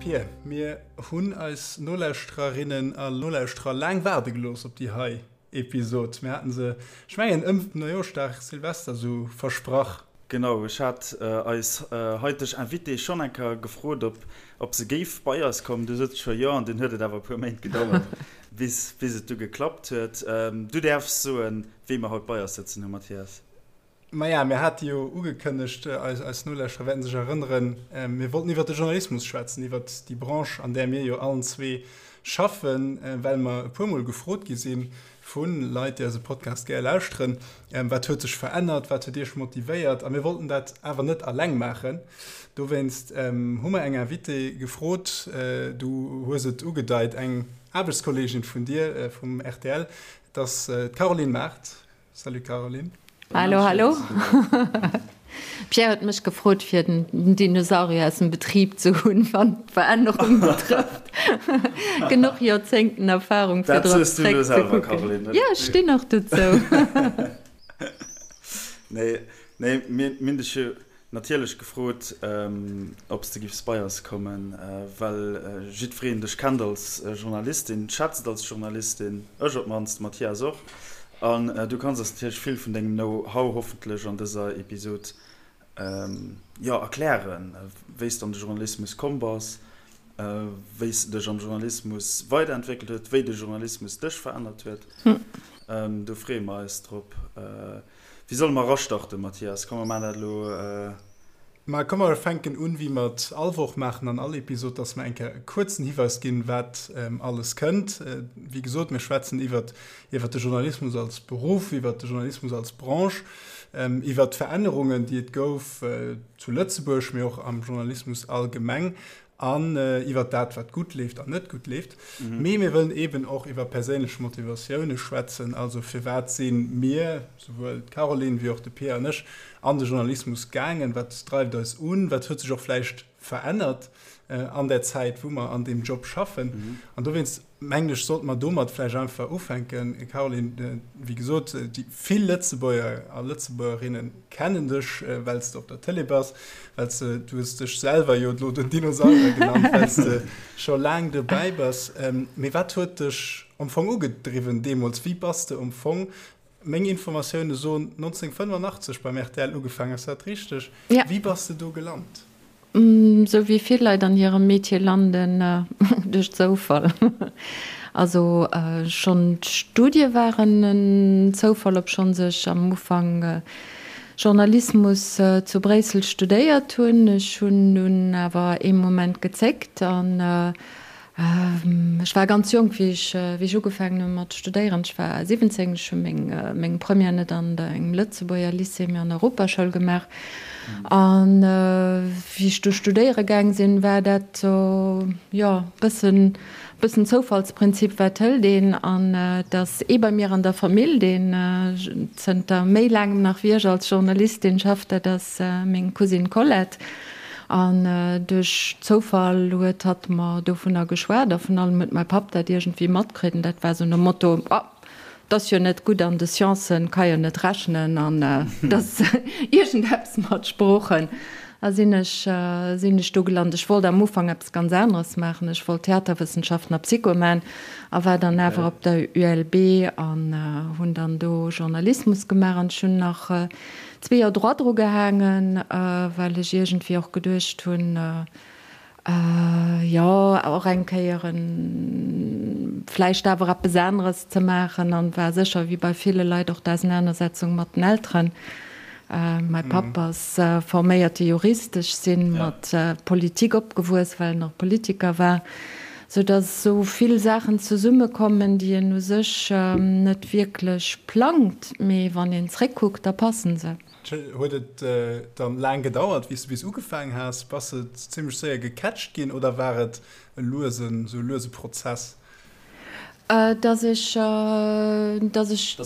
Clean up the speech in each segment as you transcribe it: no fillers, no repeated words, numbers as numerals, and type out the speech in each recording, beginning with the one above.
Pierre, mir hunn eis Nolauschtererinnen a Nolauschterer laang waarde gelooss op déi hei Episod. Mir haten se, ech mengen, ëm Neijooschdag, Silvester sou versprach. Genau, ech hat eis haiteg Invitée schonn eng Kéier gefrot, ob ob se géif bei eis kommen. Du sot se scho jo an dunn huet et awer e puer Méint gedauert, bis bis et du geklappt huet. Du däerfs soen, wee mer haut bei eis sëtzen hu, Mathias. Maja, mir hate jo ugekënnegt, eis Nolauschterer wäerten sech erënneren, mir wollten iwwert de Journalismus schwätzen, iwwert déi Branche, an där mir jo allen zwee schaffen, well mer e puermol gefrot gi si vu Leit, déi eise Podcast gär lauschteren, Wat huet sech verännert, wat huet Iech motivéiert? A mir wollten dat awer net alleng maachen. Dowéinst hu mer eng Invitée gefrot, du hues et ugedeit, eng Aarbechtskolleegin vun dir vum rtl, et ass d'Caroline Mart. Salut Caroline. Hallo, hallo. Pierre huet mech gefrot fir den Dinosaurier aus dem Betrib ze hunn, wann d'Verännerung betrëfft. Genuch Joerzéngten Erfahrung fir drop zréck ze kucken. Jo, ech stinn och dozou. Nee, nee, mir hunn dech jo Natierlech gefrot, ob s de giffs bei eis kommen, well jiddwereen dech kennt als Journalistin, schätzt als Journalistin, ech op d'mannst, de Mathias och. An du kanns eis natierlech vill vun dengem Know-how hoffentlech an dëser Episod, jo, erklären, wéi s de an de Journalismus komm bass, wéi s de dech am Journalismus weiderentwéckelt huet, wéi de Journalismus dech verännert huet. Do freeë mer eis drop. Wéi solle mer erastarten, Mathias? Komm, mer maachen dat elo. Ma komm, mer fänken un, wéi mer et all Woch maachen an all Episod, dass mer eng Kéier e kuerzen Hiweis ginn, wat alles kënnt. Wéi gesot, mir schwätzen iwwert iwwert de Journalismus als Beruff, iwwert de Journalismus als Branche, iwwert d'Verännerungen, déi et gouf zu Lëtzebuerg, mee och am Journalismus allgemeng. An iwwer dat, wat gutt leeft an net gutt leeft. Mee mir wëllen eeben och iwwer perséinlech Motivatioune schwätzen. Also firwat si mir, souwuel d'Caroline wéi och de Pierre an ech, an de Journalismus gaangen? Wat dreift eis un? Wat huet sech och vläicht verännert an där Zäit, wou mer an deem Job schaffen? An dowéinst mengen ech, sollte mer domat vläicht einfach ufänken. Caroline, wéi gesot, déi vill Lëtzebuerger a Lëtzebuergerinne kennen dech, well s de op der Tëlee bass, well s de, du hues dech selwer jo elo den Dinosaurier genannt, well s de scho laang dobäi bass. Mee wat huet dech am Fong ugedriwwen deemools? Wéi bass de am Fong, meng Informatioune soen 1985 beim rtl ugefaangen, ass dat richteg? Wéi bass de do gelant? Sou wéi vill Leit an hirem Metier landen, duerch Zoufall. Also schonn d'Studie waren en Zoufall, obschonns ech am Ufank Journalismus zu Bréissel studéiert hunn. Ech hunn dunn awer ee Moment gezéckt an Ech war ganz jonk, wéi ech, wéi ech ugefaangen hu mat studéieren. Ech war 17. Ech hu meng, meng Première net an engem Lëtzebuerger Lycée, mee an der Europaschoul gemaach. An wéi ech du studéiere gaang sinn, war dat sou, jo, bëssen, bëssen Zoufallsprinzip, wat hëlt een? An et ass ee bei mir an der Famill, deen zënter méi laangem nach wéi ech als Journalistin schafft, dat ass meng Cousine Colette. An duerch Zoufall huet hatt mer dovunner geschwat a vun allem huet mäi Papp dat iergendwéi matkritt an dat war sou nom Motto, Oh, 't ass jo net gutt an de Sciencen, ka jo net rechnen an 't ass iergendeppes mat Sproochen. A sinn ech, sinn ech do gelant. Ech wollt am Ufank eppes ganz aneres maachen, ech wollt Theaterwëssenschaften a Psycho man a war dann awer op der ULB an hunn dann do Journalismus gemaach an ech hunn nach 2 Joer Droit dru gehaangen, well ech iergendwéi och geduecht hunn, jo, och eng Kéier vläicht awer eppes aneres ze maachen. An war sécher, wéi bei ville Leit, och d'Ausenanersetzung mat den Elteren. Mäi Papp ass forméierte Jurist, ech si mat Politik opgewuess, well en och Politiker war. Sou datt esou vill Saachen zesummekommen, déi een u sech net wierklech plangt, mee wann een zréckkuckt, da passen se. Huet et dann laang gedauert, wéi s de bis ugefaang has? Bass de zimmlech séier gecatcht ginn oder war et e luesen, sou e luese Prozess? Datt ech, datt ech,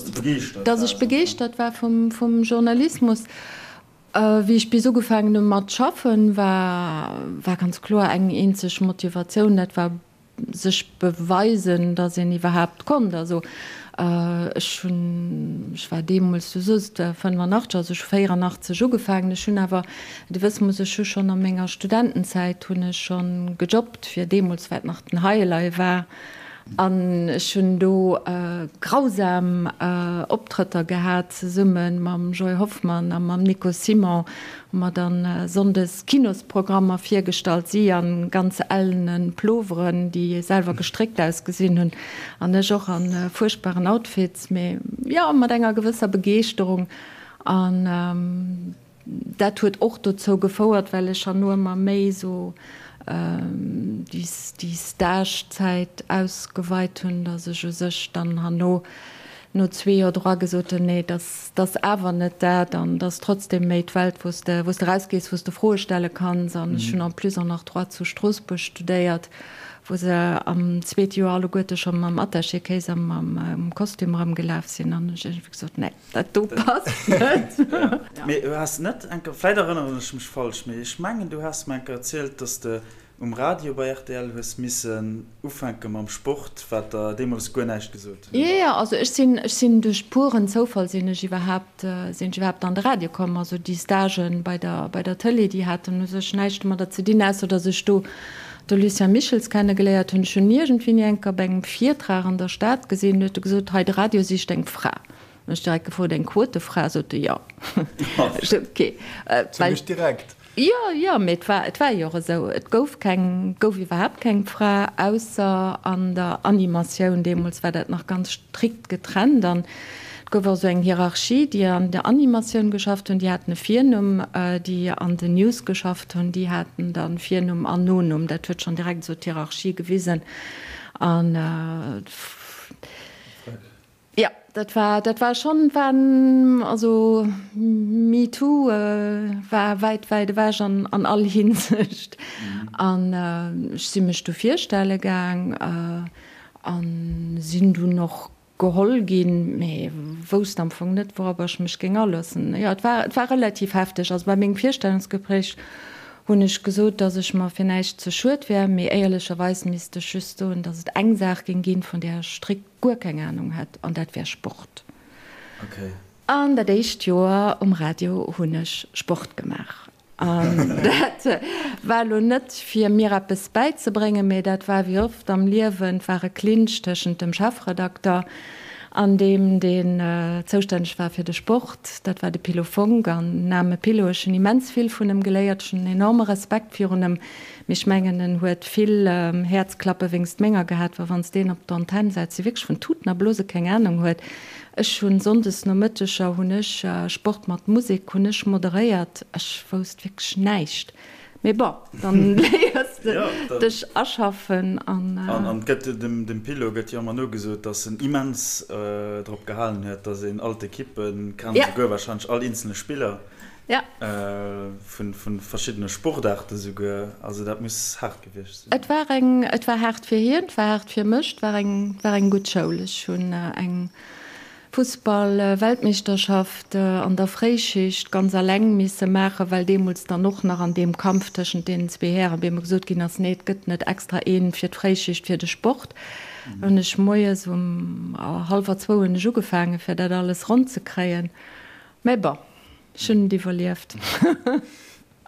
datt ech begeeschtert war vum Journalismus. Wéi ech bis ugefaangen hu mat schaffen, war war ganz kloer eng eenzeg Motivatioun, dat war sech beweisen, datt een iwwerhaapt konnt. Also. Ech hunn, ech war deemools, du soos et, 85, also ech hu 84 ugefaangen. Ech hunn awer, de wësse muss, ech hu schonn a menger Studentenzäit hunn ech schonn gejobbt, fir deemools, wat nach den High-Elei war. An ech hunn do grausam Optrëtter gehat, zesumme mam Joy Hoffmann a mam Nico Simon hu mer dann sonndes Kinosprogrammer virgestallt, si a ganz ellene Ploveren, déi selwer gestréckt ausgesinn hunn, an ech och a fuerchtbaren Outfits, mee jo, mat enger gewësser Begeeschterung. An Dat huet och dozou gefouert, well ech herno ëmmer méi esou déi Stage-Zäit ausgeweit hunn, datt ech u sech dann herno no zwee Joer Droit gesot hunn, nee, dat ass awer net dat an dat ass trotzdem méi d'Welt, wou s de, wou s de erausgees, wou s de Froe stelle kanns. An ech hunn en plus och nach Droit zu Stroossbuerg studéiert, wou se am zweete Joer alleguerte scho mam Attaché-Case a mam Kostüm erëmgelaf sinn an ech iergendwéi gesot, nee. Dat do passt net. Mee du has net eng Kéier, vläit erënneren ech mech falsch, mee ech mengen du has mer eng Kéier erzielt, dass de um Radio bei rtl hues missen ufänke mam Sport, wat der deemools guer näischt gesot huet. Jo, jo, also ech sinn, ech sinn duerch puren Zoufall sinn ech iwwerhaapt, sinn ech iwwerhaapt an de Radio komm. Also déi Stagen bei der, bei der Tëlee, déi haten u sech näischt domadder ze dinn, ausser dass ech do de Lucien Michels kennegeléiert hunn. Ech hunn iergendwéini eng Kéier op engem Virtrag an der Stad gesinn, huet e gesot, hei de Radio sicht eng Fra. Hunn ech direkt gefrot, eng Quotefra? Sot e jo. Ech sot, ok. Zimmlech direkt. Jo, jo, mee et war, et war jo och esou. Et gouf keng, gouf iwwerhaapt keng Fra, ausser an der Animatioun. Deemools war dat nach ganz strikt getrennt an et gouf och esou eng Hierarchie. Déi an der Animatioun geschafft hunn, déi haten e Virnumm, déi an den News geschafft hunn, déi haten da Virnumm an Nonumm. Dat huet schonn direkt esou d'Hierarchie gewisen an. Jo, dat war, dat war schonn, war, also MeToo war wäit, wäit ewech an an all Hinsicht. An ech si mech du virstelle gaang a sinn dunn och geholl ginn, mee wousst am Fong net, wourobber ech mech géing aloossen. Jo, et war, et war relativ hefteg. Also bei mengem Virstellungsgespréich hunn ech gesot, dass ech mer fir näischt ze schued wär, mee éierlecherweis misst ech just soen, dass et eng Saach géing ginn, vun där ech strikt guer keng Ahnung hätt, an dat wär Sport. Okay. An dat éischt Joer um Radio hunn ech Sport gemaach. An dat war elo net fir mir eppes bäizebréngen, mee dat war wéi oft am Liewen, et war e Clinch tëschent dem Chefredakter an deem, deen zoustänneg war fir de Sport, dat war de Pilo Fonck. An den aarme Pilo, ech hunn immens vill vun em geléiert, ech hunn en enorme Respekt virun em, Mee ech mengen en huet vill Häerzklappe wéngst menger gehat, well wanns deen op d'Antenn setzt, dee wierklech vun Tuten a Blose keng Ahnung huet. Ech hunn Sonndes Nomëtteger hunn ech Sport mat Musek hunn ech moderéiert, ech wousst wierklech näischt. Mee bon, dann léiers de dech aschaffen an. An et gëtt dem Pilo gëtt jo ëmmer nogesot, datt en immens drop gehalen huet, datt een all d'Ekippen kennt, esouguer wahrscheinlech all eenzele Spiller. Ja. Vun verschiddene Sportaarte souguer. Also dat muss haart gewiescht sinn. Et war eng, et war haart fir hien, et war haart fir mech, et war eng, war eng gutt Schoul. Ech hunn eng Fussball-Weltmeeschterschaft an der Fréischicht ganz alleng misse maachen, well deemools dann och nach an deem Kampf tëschent deenen zwee Hären, wéi ëmmer gesot ginn ass, nee, et gëtt net extra een fir d'Fréischicht, fir de Sport. Hunn ech moies um hallwer zwou hunn ech ugefaangen, fir dat alles ronn ze kréien. Mä bon. Ech hunn et iwwerlieft.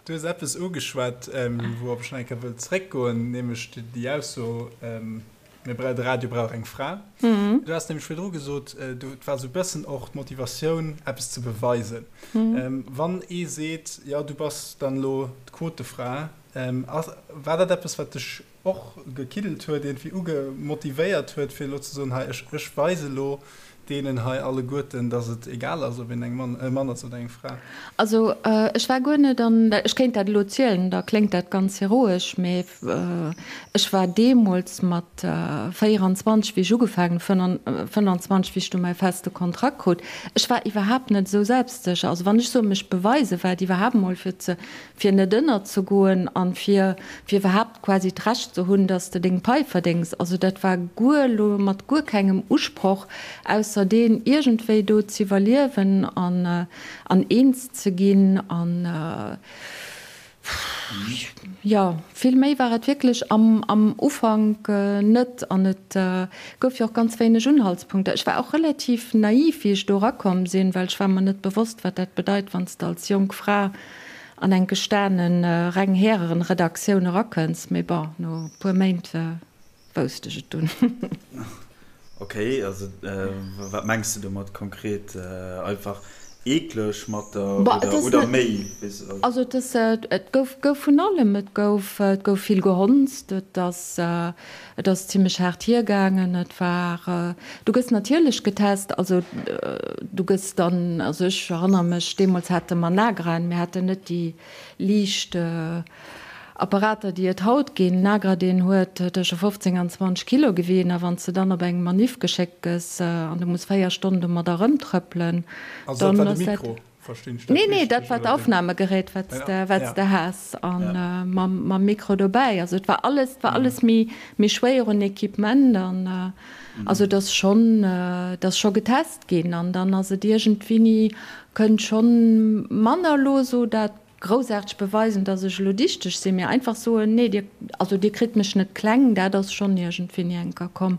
Du hues eppes ugeschwat, wourop ech nach eng Kéier wëll zréckgoen, nämlech déi Ausso, mir bra-, de Radio brauch eng Fra. Du has nämlech virdru gesot, du, et war esou e bëssen och d'Motivatioun, eppes ze beweisen. Wann ee seet, jo, du bass dann elo d'Quotefra, ass, war dat eppes, wat dech och gekiddelt huet, iergendwéi uge motivéiert huet, fir elo ze soen, hei, ech, ech weise elo deenen hei alleguerten, datt et egal ass, ob een eng Mann, e Mann ass oder eng Fra. Also, ech war guer net an, ech kéint dat elo zielen, da kléngt dat ganz heroesch, mee ech war deemools mat 24, wéi ech ugefaangen hunn, 25, wéi ech du mäi feste Kontrakt krut, ech war iwwerhaapt net esou selbstsécher. Also wann ech soe mech beweisen, war et iwwerhaapt emol fir ze, fir net ënnerzegoen an fir fir iwwerhaapt quasi d'Recht ze hunn, dass de deng Pai verdéngs. Also dat war guer elo mat guer kengem Usproch, ausser deen iergendwéi do z'iwwerliewen an an eens ze ginn an. Jo, vill méi war et wierklech am am Ufank net an et gouf jo och ganz wéineg Unhaltspunkter. Ech war och relativ naiv, wéi ech do erakomm sinn, well ech war mer net bewosst, wat dat bedeit, wann s de als jonk Fra an eng gestane reng Häreredaktioun erakënns. Mee bon, no e puer Méint Wousst ech et dunn. Ok, also wat mengs de domat konkret? Einfach eekleg mat der oder oder méi? Also et ass, et gouf gouf vun allem, et gouf et gouf vill gehonzt, et ass et ass zimlech haart hiergaangen, et war, du gëss natierlech getest, also du gëss dann, also ech erënnere mech, deemools hate mer Nagraen, mir haten net déi liicht Apparater, déi et haut ginn, Nagra, deen huet tësche 15 an 20 Kilo gewien, a wann s de dann op eng Maniff geschéckt gëss an du muss 4 Stonnen domadder erëmtrëppelen, Also dat war de Mikro, verstinn ech dat Nee, nee, dat war d'Aufnahmegerät, wat s de, wat s de has, a mam, mam Mikro dobäi. Also et war alles, et war alles méi, méi schwéier un Equipement an also et ass schonn, et ass scho getest ginn an dann ass et iergendwéini, kënnt schonn manner elo esou dat Groussaarteg beweisen, dass ech elo dichteg sinn, mee einfach soen, nee, dir, also dir kritt mech net kleng, dat ass schonn iergendwéini enker komm.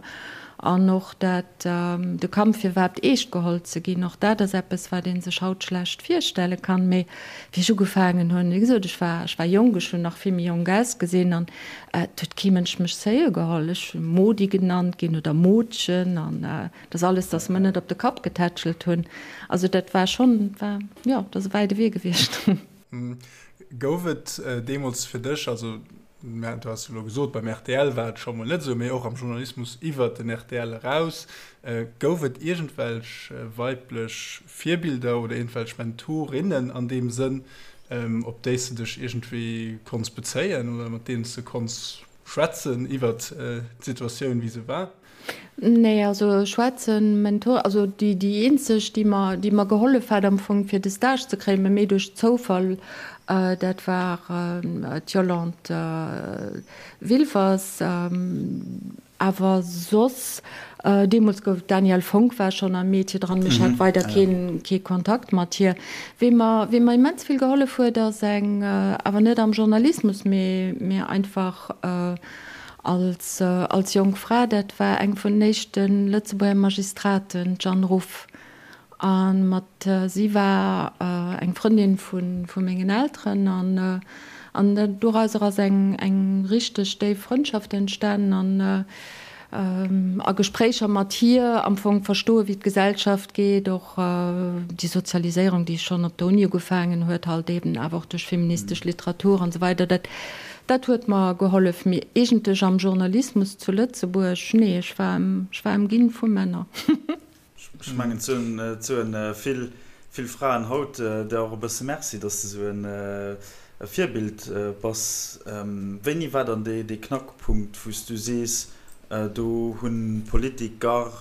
An och dat, de Kampf fir iwwerhaapt eescht geholl ze ginn, och dat ass eppes, wat ee sech haut schlecht virstelle kann. Mee wéi ech ugefaangen hunn, wéi gesot, ech war, ech war jonk, ech hunn nach vill méi jonk ausgesinn an et huet kee Mënsch mech seriö geholl. Ech hu Modi genannt ginn oder Modchen an Dat ass alles, dass mer net op de Kapp getätschelt hunn. Also dat war schonn, war, jo, dat ass e wäite Wee gewiescht. Gouf et deemools fir dech, also du has jo elo gesot, beim rtl war et scho mol net esou, mee och am Journalismus iwwert den rtl eraus, gouf et iergendwelch weiblech Virbilder oder iergendwelch Mentorinnen an deem Sënn, op déi s de dech iergendwéi konns bezéien oder mat deenen s de konns schwätzen iwwert d'Situatioun, wéi se war? Nee, also schwätzen, Mentor, also déi déi eenzeg, déi mer, déi mer gehollef hat am Fong fir de Stage ze kréien, mä méi duerch Zoufall, dat war d'Yolande Wilfers. Awer soss, deemools gouf, d'Danièle Fonck war schonn am Métier dran, mee ech hat weider keen, kee Kontakt mat hir. Wee mer, wee mer immens vill gehollef huet, ass eng, awer net am Journalismus, mee, mee einfach, Als als jonk Fra, dat war eng vun den éischte Lëtzebuerger Magistraten, d'Jeanne Ruff. A mat si war eng Frëndin vu vu mengen Elteren an an dorauser ass eng eng richteg déif Frëndschaft entstanen an a Gespréicher mat hir am Fong verstoe wéi d'Gesellschaft geet, och déi Sozialiséierung, déi schonn op der Uni ugefaangen huet, halt eben awer och duerch feministesch Literatur an esou weider, dat dat huet mer gehollef. Mee eegentlech am Journalismus zu Lëtzebuerg, nee, ech war ech war ëmginn vu Männer. Ech mengen, et soen vill, vill Fraen haut der och e bësse Merci, dass de esou e Virbild bass. Wéini war dann dee Knackpunkt, wou s du sees, do hunn d'Politiker,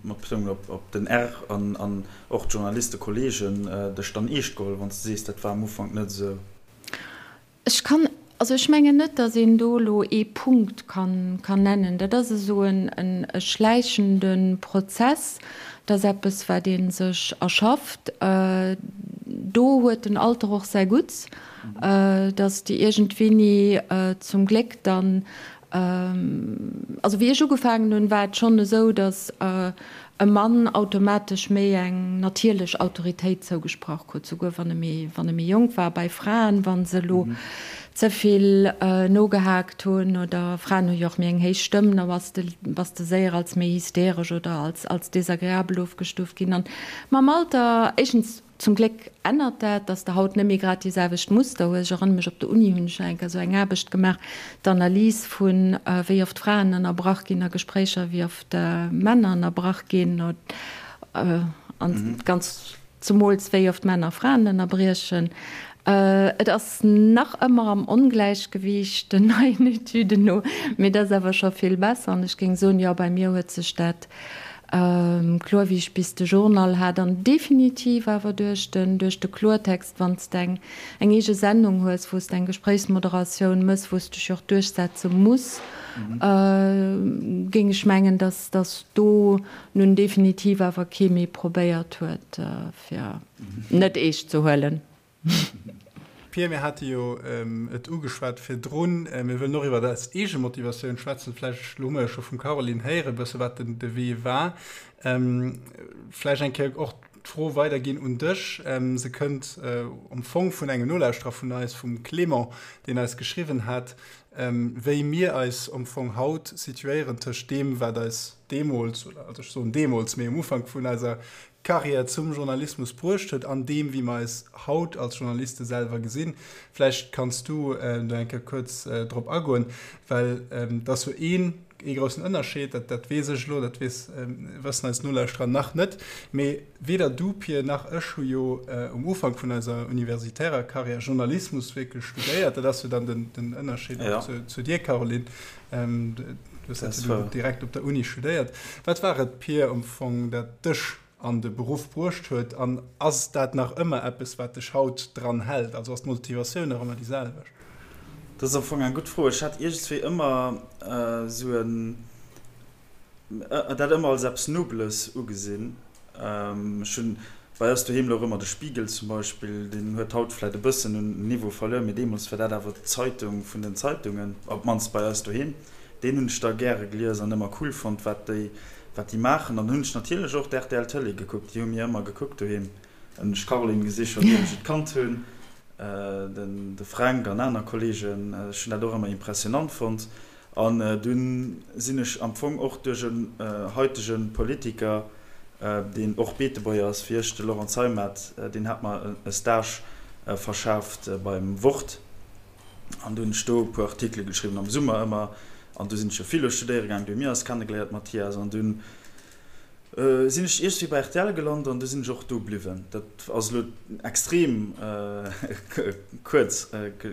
mat Betounung op den R, an och d'Journalistekolleegen dech dann eescht geholl, wann s de sees, dat war am Ufank net esou? Ech kann, also ech mengen net, datt een do elo ee Punkt kann nennen. Dat ass esou en schläichende Prozess. Dat ass eppes, wat ee sech erschafft. Do huet den Alter och säi Gutts, datt de iergendwéini zum Gléck dann Also wéi ech ugefaangen hunn, war et schonn esou, datt e Mann automatesch méi eng natierlech Autoritéit zougesprach krut, souguer wann e méi, wann e méi jonk war. Bei Fraen, wa se elo ze vill nogehaakt hunn, oder Fraen hu jo och méi eng héich Stëmm, da bass de, bass de séier als méi hysteresch oder als, als desagreabel ofgestuuft ginn. An mam Alter, éischtens, Zum Gléck ännert dat, dass de haut net méi grad déi selwecht Muster hues. Ech erënnere mech, op der Uni hunn ech nach eng Kéier esou eng Aarbecht gemaach, d'Analys vun, wéi oft Fraen ënnerbrach ginn a Gespréicher, wéi oft Männer ënnerbrach ginn, an ganz zemools wéi oft Männer Fraen ënnerbriechen. Et ass nach ëmmer am Ongläichgewiicht, den neien Etüden no, mee et ass awer scho vill besser. An ech géing soen, jo, bei mir huet sech dat Kloer, wéi ech bis de Journal hat, an definitiv awer duerch den, duerch de Kloertext, wann s de eng, eng eege Sendung hues, wou s de eng Gespréichsmoderatioun mëss, wou s dech jo och duerchsetze muss, géing ech mengen, dass, dass do nun definitiv awer kee méi probéiert huet, fir net eescht ze huelen. Pia, mir hate jo et ugeschwat virdrun, mir wëllen och iwwer eis eege Motivatioun schwätzen. Vläicht, elo hu mer jo scho vum Caroline héieren e bësse wat den de Wee war. Vläicht eng Kéier och d'Fro weiderginn un dech. Se kënnt am Fong vun engem Nolauschterer vun eis, vum Clément, deen eis geschriwwen hat, wéi mir eis am Fong haut situéieren tëscht deem, wat eis deemools, oder also ech soen deemools, mee um Ufank vun eiser Karriär zum Journalismus bruecht huet an deem, wéi mer eis haut als Journaliste selwer gesinn. Vläicht kanns du do eng Kéier kuerz drop agoen, well et ass jo een, ee groussen Ënnerscheed, dat, dat weess ech elo, dat weess, wëssen eis Nolauschterer nach net, mee weder du, Pir, nach ech hu jo um Ufank vun eiser universitärer Karriär Journalismus wierklech studéiert. Dat ass jo dann den, den Ënnerscheed och zu, zu dir, Caroline. Du hues dat jo direkt op der Uni studéiert. Wat war et, Pir, am Fong, dat dech an de Beruff bruecht huet? An ass dat nach ëmmer eppes, wat dech haut dran hält? Also ass d'Motivatioun nach ëmmer déi selwecht? Dat ass am Fong eng gutt Fro. Ech hat iergendswéi ëmmer esou en, dat ëmmer als eppes Nobeles ugesinn. Ech hunn bei eis doheem louch ëmmer de Spiegel zum Beispill, deen huet haut vläit e bëssen un Niveau verluer, mee deemools war dat awer d'Zeitung vun den Zeitungen, op d'mannst bei eis doheem. Deen hunn ech da gäre gelies an ëmmer cool fonnt, wat déi, wat déi maachen. An dann hunn ech natierlech och d'RTL Tëlee gekuckt, déi hu mir ëmmer gekuckt doheem. Hunn ech d'Caroline gesi schonn ier ech et kannt hunn, den de Fränk an aner Kolleegen. Ech hunn dat och ëmmer impressionant fonnt. An dunn sinn ech am Fong och duerch en haitege Politiker, deen och Beetebuerger ass wéi ech, de Laurent Zeimet, deen hat mer e Stage verschaaft beim Wort. An du hunn ech do e puer Artikele geschriwwen, am Summer ëmmer. An du sinn ech jo Philo studéiere gaangen, du hu mir eis kennegeléiert, Mathias. An dunn sinn ech iergendwéi bei rtl gelant an du sinn ech och do bliwwen. Dat ass elo extrem kuerz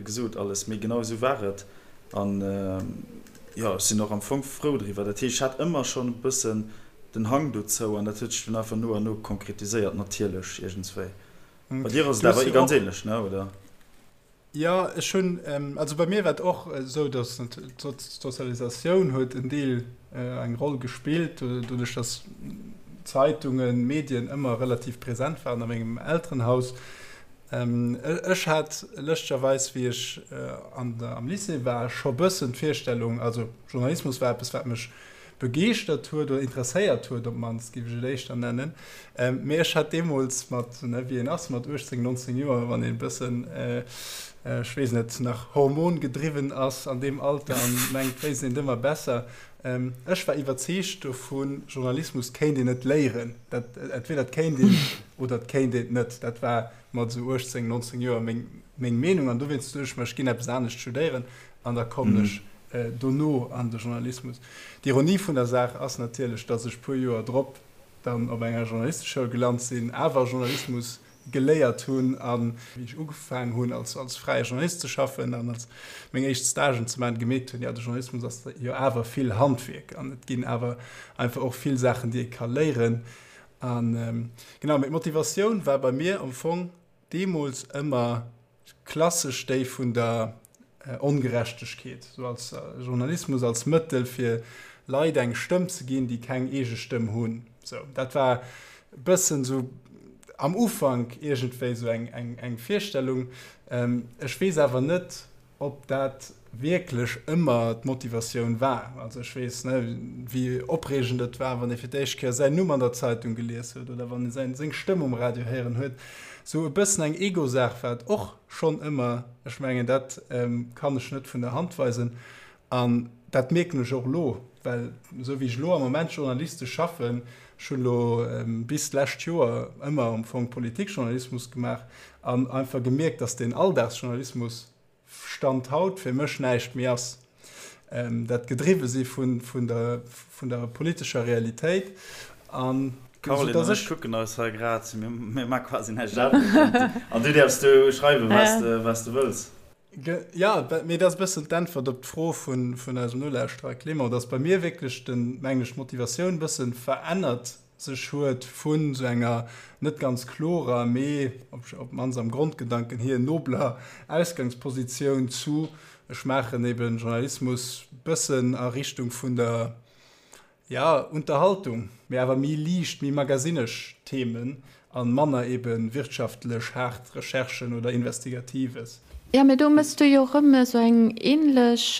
gesot alles, mee genau esou war et. An jo, ech sinn och am Fong frou driwwer. Dat heescht, ech hat ëmmer schonn e bëssen den Hang dozou an dat huet sech dunn einfach no an no konkretiséiert natierlech iergendswéi. Bei dir ass et awer ganz ähnlech, ne, oder? Jo, ech hunn, also bei mir war et och esou, datt d'Sozialisatioun huet en Deel eng Roll gespillt, doduerch datt Zeitungen, Medien ëmmer relativ present waren a mengem Elterenhaus. Ech hat lëschtegerweis, wéi ech an der, am Lycée war, scho bëssen d'Virstellung, also Journalismus war eppes, wat mech begeeschtert huet oder interesséiert huet, op d'mannst géif ech et éischter nennen. Mee ech hat deemools mat, ne, wéi een ass mat 18, 19 Joer, wann een e bëssen, ech weess net, nach hormongedriwwen ass an deem Alter an mengt, wéisst een et ëmmer besser. Ech war iwwerzeegt dovun, Journalismus kéint een net léieren. Dat, entweder et kéint een oder et kéint een et net. Dat war mat esou 18, 19 Joer meng, meng Meenung an dowéinst duecht ech mer, ech ginn eppes anescht studéieren an da kommen ech dono an de Journalismus. D'Ironie vun der Saach ass natierlech, datt ech puer Joer drop dann op enger Journalisteschoul gelant sinn, awer Journalismus geléiert hunn a wéi ech ugefaang hunn als als fräie Journalist ze schaffen an als meng éischt Stagen ze maachen, gemierkt hunn, jo de Journalismus ass jo awer vill Handwierk an et ginn awer einfach och vill Saachen, déi ee ka léieren. A genau, mee d'Motivatioun war bei mir am Fong deemools ëmmer klassesch déi vun der Ongerechtegkeet, sou als Journalismus als Mëttel fir Leit eng Stëmm ze ginn, déi keng eege Stëmm hunn. Sou, dat war e bëssen sou am Ufank iergendwéi sou eng, eng, eng Virstellung. Ech weess awer net, ob dat wierklech ëmmer d'Motivatioun war. Also ech weess, ne, wéi opreegend et war, wann ee fir d'éischt Kéier säin Numm an der Zeitung gelies huet oder wann ee säin, seng Stëmm um Radio héieren huet. Sou e bëssen eng Ego-Saach war et och schonn ëmmer. Ech mengen, dat kann ech net vun der Hand weisen. An dat mierken ech och elo, well esou wéi ech elo am Moment journalistesch schaffen, ech hunn elo bis d'lescht Joer ëmmer am Fong Politikjournalismus gemaach an einfach gemierkt, datt deen Alldagsjournalismus Stand haut fir mech näischt méi ass. Dat gedriwwe si vun der, vun der politescher Realitéit an Caroline an ech kucken eis hei grad, mir maache quasi näischt anescht an du däerfs do schreiwen, wat s de wëlls. Jo, mee dat ass e bëssen d'Äntwert op d'Fro vun eisem Nolauschterer Clément, dass bei mir wierklech den, mengen ech, d'Motivatioun e bësse verännert sech huet vun esou enger net ganz klorer, mee op d'mannst am Grondgedanken hier nobler Ausgangspositioun zu, ech maachen eben Journalismus bëssen a Richtung vun der, Ja, Unterhaltung, mee awer méi liicht, méi magazinesch Themen an manner eben wirtschaftlech haart Recherchen oder Investigatives. Jo, mee do mëss du jo erëm esou eng ähnlech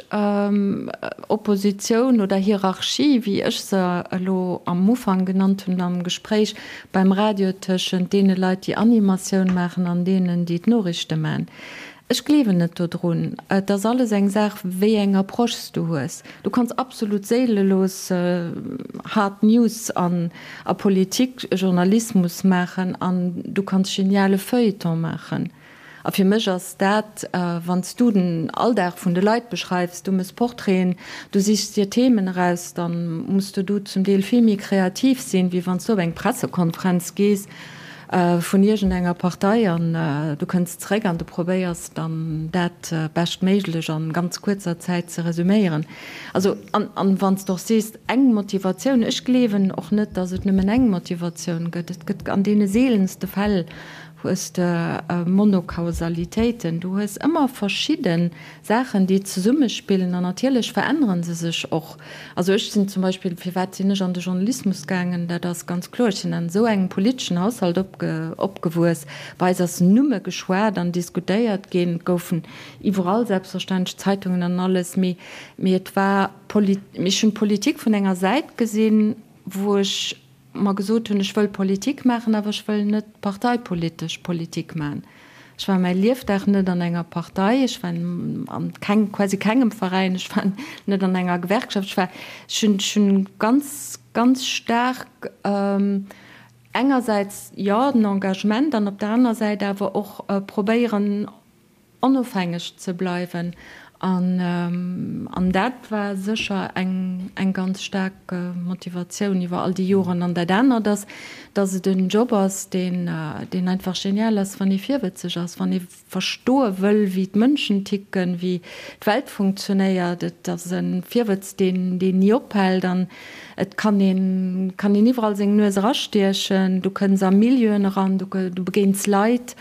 Oppositioun oder Hierarchie, wéi ech se elo am Ufank genannt hunn am Gespréich beim Radio tëschent deene Leit, déi Animatioun maachen an deenen, déi d'Noriichte maachen. Ech gleewen net dodrun. Et ass alles eng Saach, wéi eng Approche s du hues. Du kanns absolut séilelos hard News an a Politik, Journalismus maachen an du kanns geniale Feuilleton maachen. A fir mech ass dat, wann s du den Alldag vun de Leit beschreifs, du mëss Portraiten, du sichs dir Themen eraus, da muss du do zum Deel vill méi kreativ sinn, wéi wann s du op eng Pressekonferenz gees vun iergendenger Partei an du kënns zeréck an du probéiers dann dat beschtméiglech an ganz kuerzer Zäit ze resüméieren. Also, an, an wann s de och sees, eng Motivatioun, ech gleewen och net, datt et nëmmen eng Motivatioun gëtt. Et gëtt an deene seelenste Fäll hues de Monokausalitéiten, du hues ëmmer verschidde Saachen, déi zesummespillen an natierlech verännere se sech och. Also ech sinn zum Beispill, firwat sinn ech an de Journalismus gaangen, dat ass ganz kloer, ech sinn an esou engem politeschen Haushalt opgewuess, bei eis ass nëmme geschwat an diskutéiert ginn, et goufen iwwerall selbstverständlech Zeitungen an alles, mee et war, ech hunn d'Politik vun enger Säit gesinn, wou ech mer gesot hunn, ech wëll Politik maachen, awer ech wëll net parteipolitesch Politik maachen. Ech war mäi Liefdag net an enger Partei, ech war an keng, quasi kengem Veräin, ech war net an enger Gewerkschaft, ech war, ech hunn, ech hunn ganz, ganz staark engersäits, jo, den Engagement an op der aner Säit awer och probéieren, onofhängeg ze bleiwen an dat war sécher eng ganz staark Motivatioun iwwer all déi Joren. An dat anert ass, datt et en Job ass, deen einfach genial ass, wann ee virwëtzeg ass, wann ee verstoe wëll, wéi d'Mënschen ticken, wéi d'Welt funktionéiert. Et ass e Virwëtz, deen ni ophält an et kann een iwwerall seng Nues erastiechen. Du kënns a Milieuen eran, du begéins Leit.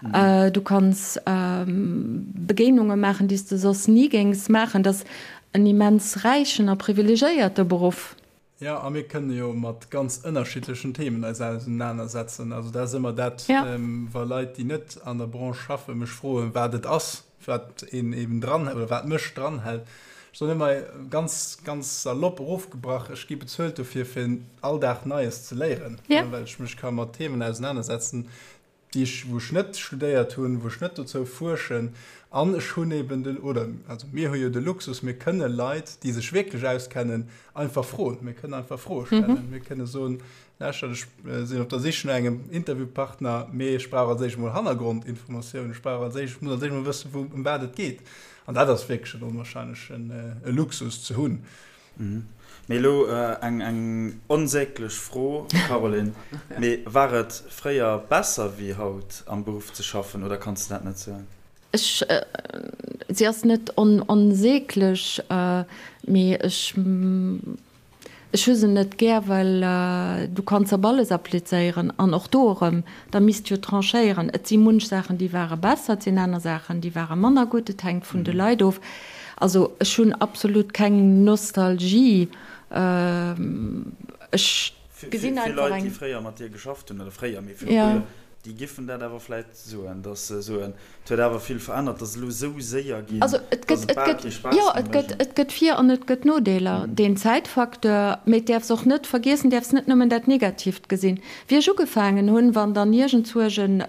Du kanns Begéinunge maachen, déi s de soss ni géings maachen. Dat ass en immens räichen a privilegéierte Beruff. Jo, a mir kënne jo mat ganz ënnerschiddlechen Themen eis ausenanersetzen. Also dat ass ëmmer dat, wa Leit, déi net an der Branche schaffen, mech froen, wat et ass, wat een eben dran oder wat mech dranhält. Ech soen ëmmer ganz, ganz salopp erofgebrach, ech gi bezuelt dofir, fir all Dag Neies ze léieren, well ech mech ka mat Themen ausenanersetzen, déi ech, wou ech net studéiert hunn, wou ech net dozou fuerschen, an ech hunn eben den, oder also mir hu jo de Luxus, mir kënne Leit, déi sech wierklech auskennen, einfach froen. Mir kënnen einfach Froe stellen. Mir kënne soen, lauschtert, ech sinn op der Sich no engem Interviewpartner, mee ech brauch als éischt emol Hannergrondinformatiounen, ech brauch als éischt, ech muss als éischt emol wëssen, wou, ëm wat et geet. An dat ass wierklech en onwahrscheinlechen Luxus ze hunn. Mee elo eng onsäglech Fro, Caroline, mee war et fréier besser wéi haut am Beruff ze schaffen oder kanns de dat net soen? Ech, si ass net onsäglech, mee ech, ech hu se net gär, well du kanns op alles applizéieren an och do erëm, da misst jo tranchéieren. Et si munch Saachen, déi ware besser, et sinn aner Saachen, déi ware manner gutt, et hänkt vun de Leit of. Also ech hunn absolut keng Nostalgie. Ech gesinn einfach eng. Vill Leit, déi fréier mat dir geschafft hunn, oder fréier, mee viru puer Joer, déi giffen dat awer vläit soen, datt se soen, et huet awer vill verännert, et ass elo esou séier ginn, datt et bal kee Spaass méi mécht. Et gëtt Vir an et gëtt Nodeeler. Deen Zäitfacteur, mee et däerfs och net vergiessen, däerfs net nëmmen dat Negatiivt gesinn. Wéi ech ugefaangen hunn, wann dann iergendzuerch en,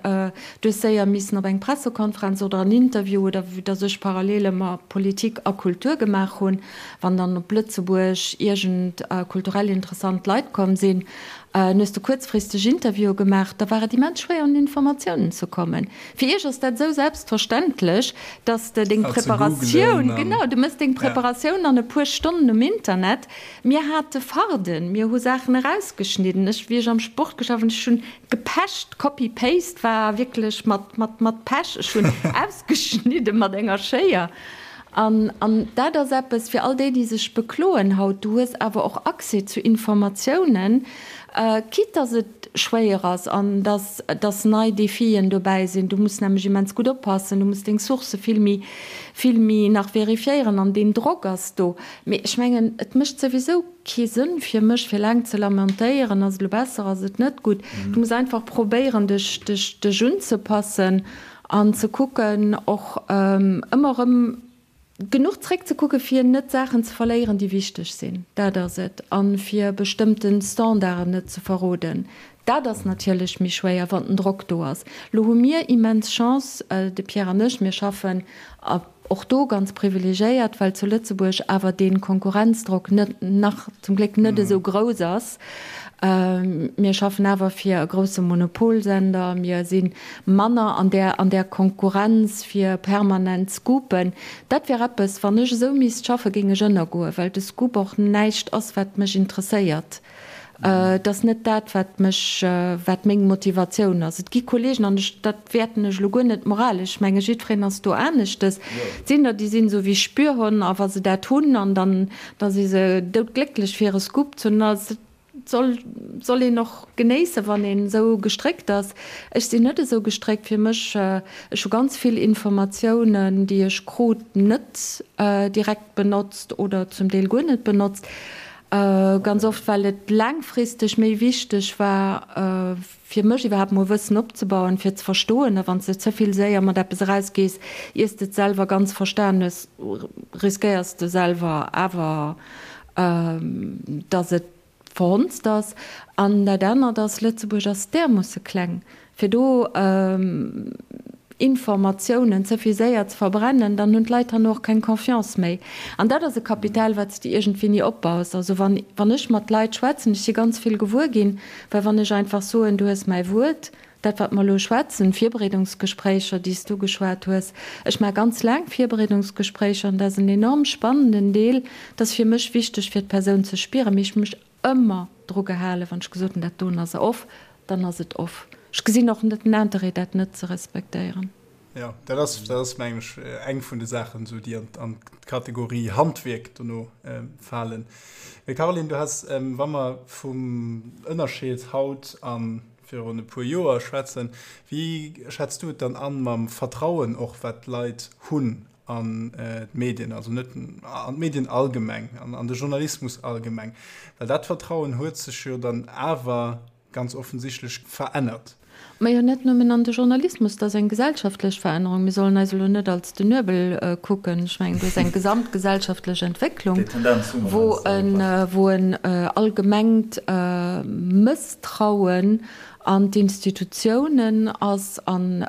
du hues séier missen op eng Pressekonferenz oder en Interview oder vue dass ech parallel ëmmer Politik a Kultur gemaach hunn, wann dann op Lëtzebuerg iergend kulturell interessant Leit komm sinn, an hues de kuerzfristeg Interviewe gemaach, da war et immens schwéier un Informatiounen ze kommen. Fir iech ass dat esou selbstverständlech, dass de deng Preparatioun, genau, du mëss deng Preparatioun an e puer Stonnen um Internet, Mir hate Farden, mir hu Saachen erausgeschnidden. Ech, wéi ech am Sport geschafft hunn, ech hunn gepecht, Copy Paste war wierklech mat, mat, mat Pech. Ech hunn ausgeschnidde mat enger Schéier. An, an dat ass eppes fir all déi, déi sech bekloen haut, du hues awer och Accès zu Informatiounen, quitte dass et schwéier ass an dass, dass nei Defien dobäi sinn. Du muss nämlech immens gutt oppassen, du muss deng Sourcë vill méi, vill méi nach vérifiéieren an deen Drock ass do. Mee ech mengen, et mécht souwisou kee Sënn fir mech, fir laang ze lamentéieren, ass et elo besser, ass et net gutt. Du muss einfach probéieren, dech, dech, dech unzepassen. An ze kucken och ëmmer erëm genuch zréckzekucken, fir net Saachen ze verléieren, déi wichteg sinn. Dat ass et. A fir bestëmmte Standarden net ze verroden. Dat ass natierlech méi schwéier, wann den Drock do ass. Lo hu mir immens Chance, de Pierre an ech, mir schaffen och do ganz privilegiéiert, well zu Lëtzebuerg awer dee Konkurrenzdrock net, nach zum Gléck net esou grouss ass. Mir schaffen awer fir e grousse Monopolsender, mir si manner an där, an där Konkurrenz fir permanent Scoopen. Dat wär eppes, wann ech esou misst schaffen, géing ech ënnergoen, well de Scoop och näischt ass, wat mech interesséiert. Et ass net dat, wat mech, wat meng Motivatioun ass. Et gi Kollegen, an ech, dat wäerten ech elo guer net moralesch, ech menge jiddwereen ass do aneschtes, et sinn der, déi sinn esou wéi Spürhonn a wa se dat hunn an dann, da si se doudglécklech fir e Scoop ze hunn. A et soll, soll een och genéissen, wann een esou gestréckt ass. Ech sinn net esou gestréckt. Fir mech, ech hu ganz vill Informatiounen, déi ech krut, net direkt benotzt oder zum Deel guer net benotzt. Ganz oft, well et laangfristeg méi wichteg war, fir mech iwwerhaapt mol Wëssen opzebauen, fir ze verstoen. A wann s de ze vill séier mat eppes erausgees, iers de et selwer ganz verstan hues, riskéiers de selwer awer, dass et verhonzt ass. An dat anert ass, Lëtzebuerg ass därmoosse kleng, fir do Informatiounen ze vill séier ze verbrennen, dann hunn d'Leit herno och keng Confiance méi. An dat ass e Kapital, wat s de iergendwéi ni opbaus. Also wann, wann ech mat Leit schwätzen, ech si ganz vill gewuer ginn, well wann ech einfach soen, du hues mäi Wuert, dat wat mer elo schwätzen, Virbereedungsgespréicher, déi s du geschwat hues, ech maache ganz laang Virbereedungsgespréicher an dat ass en enorm spannenden Deel, dat ass fir mech wichteg fir d'Persoun ze spieren, mee ech hu mech ëmmer dru gehalen, wann ech gesot hunn, dat doen ass off, dann ass et off. Ech gesinn och net den Interêt, dat net ze respektéieren. Jo, dat ass, dat ass mengen ech eng vun de Saachen, esou déi an, an d'Kategorie Handwierk dono falen. Mee Caroline, du has, wa mer vum Ënnerscheed haut a virun e puer Joer schwätzen, wéi schätz du et dann an mam Vertrauen och, wat d'Leit hunn an d'Medien, also net an d'Medien allgemeng, an an de Journalismus allgemeng, well dat Vertrauen huet sech jo dann awer ganz offensichtlech verännert. Majo, net nëmmen an de Journalismus, dat ass eng gesellschaftlech Verännerung. Mir sollen eis elo net als den Nuebel kucken. Ech mengen, do ass eng gesamtgesellschaftlech Entwécklung, wou en allgemengt Mësstrauen an d'Institutiounen ass an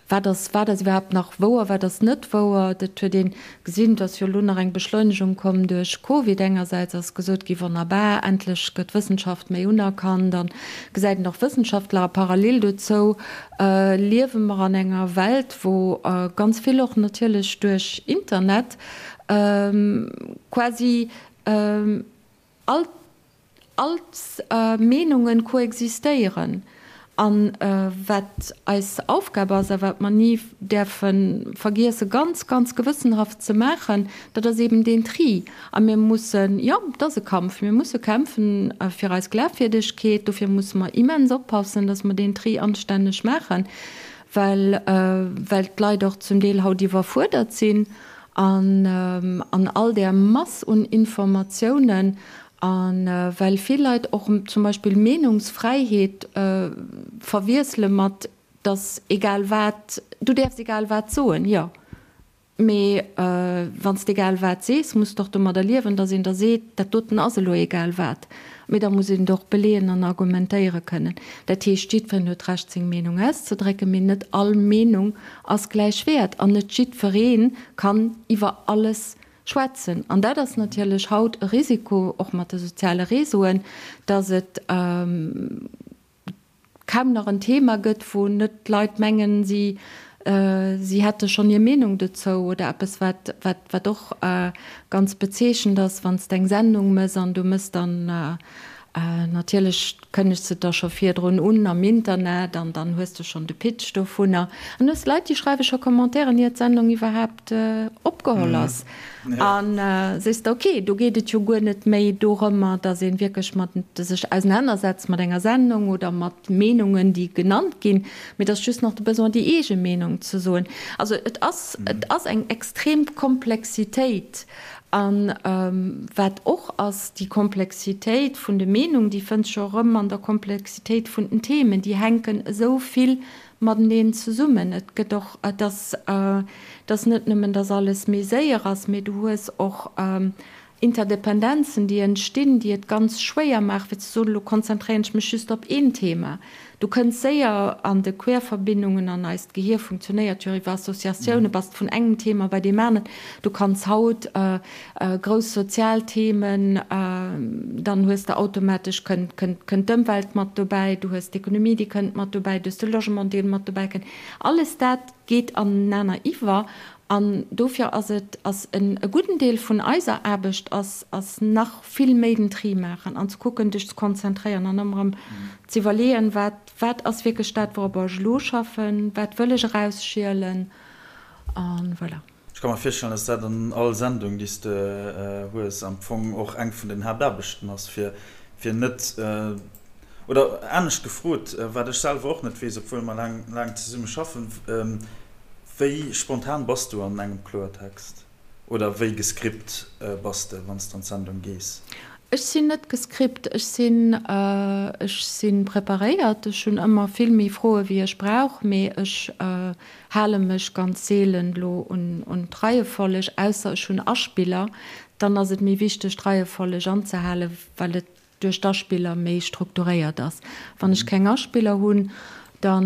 wat ass, wat ass iwwerhaapt nach wouer, wat ass net wouer. Dat huet ee gesinn, et ass jo elo nach eng Beschleunegung komm duerch Covid. Engersäits ass gesot gi wonnerbar, endlech gëtt d'Wëssenschaft méi unerkannt an gesäit een och Wëssenschaftler. A parallel dozou liewe mer an enger Welt, wou ganz vill och natierlech duerch Internet quasi all All d'Meenungen koexistéieren. An wat eis Aufgab ass a wat mer ni däerfe vergiesse ganz, ganz gewëssenhaft ze maachen, dat ass eben deen Tri. A mir mussen, jo, et ass e Kampf, mir musse kämpfen fir eis Glafwierdegkeet. Dofir musse mer immens oppassen, dass mer deen Tri anstänneg maachen, well, well d'Leit och zum Deel haut iwwerfuerdert sinn an an all där Mass un Informatiounen a well vill Leit och zum Beispill Meenungsfräiheet verwiessele mat, dass egal wat, du däerfs egal wat soen, jo, mee wann s de egal wat sees, muss de och domadder liewen, dass een der seet, dat doten ass elo egal wat. Mee da muss een et och beleeën an argumentéiere kënnen. Dat heescht, jiddwereen huet d'Recht, seng Meenung auszedrécken, mee net all Meenung ass gläich wäert an net jiddweree kann iwwer alles schwätzen. An dat ass natierlech haut e Risiko, och mat de soziale Réseauen, dass et kaum nach en Thema gëtt, wou net d'Leit mengen, si si hätte schonn hir Meenung dozou oder eppes, wat wat wat och ganz bezeechent ass, wann s de eng Sendung mëss an du mëss dann natierlech kënnegs de da scho virdrun un am Internet an dann hues de schonn de Pitch dovunner an hues Leit, déi schreiwe scho Commentairen, ier d'Sendung iwwerhaapt opgeholl ass. An sees de, ok, do geet et jo guer net méi dorëmmer, datt ee wierklech mat sech ausenanersetzt mat enger Sendung oder mat Meenungen, déi genannt ginn, mee et ass just nach de Besoin, déi eege Meenung ze soen. Also et ass, et ass eng extrem Komplexitéit. A wat och ass, déi Komplexitéit vun de Meenungen, déi fënns scho erëm an der Komplexitéit vun den Themen, déi hänken esou vill. mateneen zesummen. Et gëtt och, et ass, et ass net nëmmen, dass alles méi séier ass, mee du hues och Interdependenzen, déi entstinn, déi et ganz schwéier maachen, fir ze soen, elo konzentréieren ech mech just op een Thema. Du kënns séier an de Querverbindungen, an eist Gehier funktionéiert jo iwwer Associatioune, bass vun engem Thema bei deem aneren. Du kanns haut grouss sozial Themen, dann hues de automatesch, kënnt, kënnt, kënnt d'Ëmwelt mat dobäi, du hues d'Ekonomie, déi kënnt mat dobäi, du hues de Logement, dee mat dobäi kënnt. Alles dat geet anenaner iwwer an dofir ass et, ass en e gudden Deel vun eiser Aarbecht ass, ass nach vill méi den Tri maachen an ze kucken, dech ze konzentréieren an ëmmer erëm ze iwwerleeën, wat, wat ass wierklech dat, wouropper ech elo schaffen, wat wëll ech erausschielen a voilà. Ech ka mer virstellen, dass dat an all Sendung, déi s de hues, am Fong och eng vun den Haaptaarbechten ass, fir, fir net, oder anescht gefrot, wat ech selwer och net weess, obwuel mer laang, laang zesumme schaffen, Wéi spontan bass du an engem Kloertext? Oder wéi gescript bass de, wann s de an d'Sendung gees? Ech sinn net gescript, ech sinn, ech si preparéiert. Ech hunn ëmmer vill méi Froe wéi ech brauch, mee ech hale mech ganz seelen elo un d'Reiefolleg, ausser ech hunn Aspiller, dann ass et méi wichteg d'Reiefolleg anzehalen, well et duerch d'Aspiller méi strukturéiert ass. Wann ech keng Aspiller hunn, da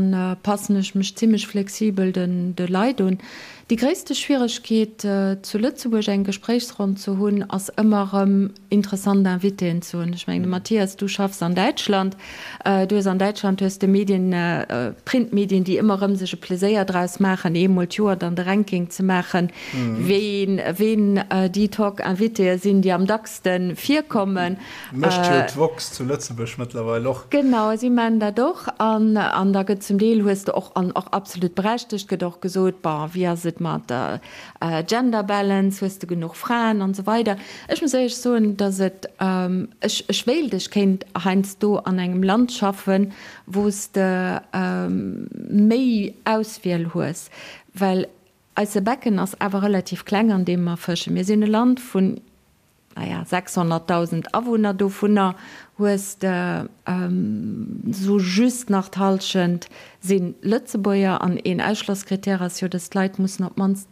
passen ech mech zimmlech flexibel de Leit un. Déi gréisste Schwieregkeet zu Lëtzebuerg eng Gespréichsronn ze hunn, ass ëmmer erëm interessant Invitéen ze hunn. Ech mengen, de Mathias, du schaffs an Däitschland. Du hues an Däitschland hues de Medien, Printmedien, déi ëmmer erëm sech e Pleséier draus maachen, eemol d'Joer dann de Ranking ze maachen, ween, ween déi Talk-Invitéë sinn, déi am dackste virkommen. Mécht jo d'woxx zu Lëtzebuerg mëttlerweil och. Genau, si maachen dat och. An, an da gëtt zum Deel, hues de och, an och absolut berechtegt, gëtt och gesot, bon, wéi ass et mat der Gender Balance, hues de genuch Fraen an esou weider. Ech muss éierlech soen, datt et, ech, ech wéilt, ech kéint heiansdo an engem Land schaffen, wou s de méi Auswiel hues, well eise Becken ass awer relativ kleng, an deem mer fëschen. Mir sinn e Land vun naja, 600.000 Awunner, dovunner hues de sou just nach d'Hallschent si Lëtzebuerger. An een Ausschlosskrittär ass jo, dass d'Leit mussen op d'mannst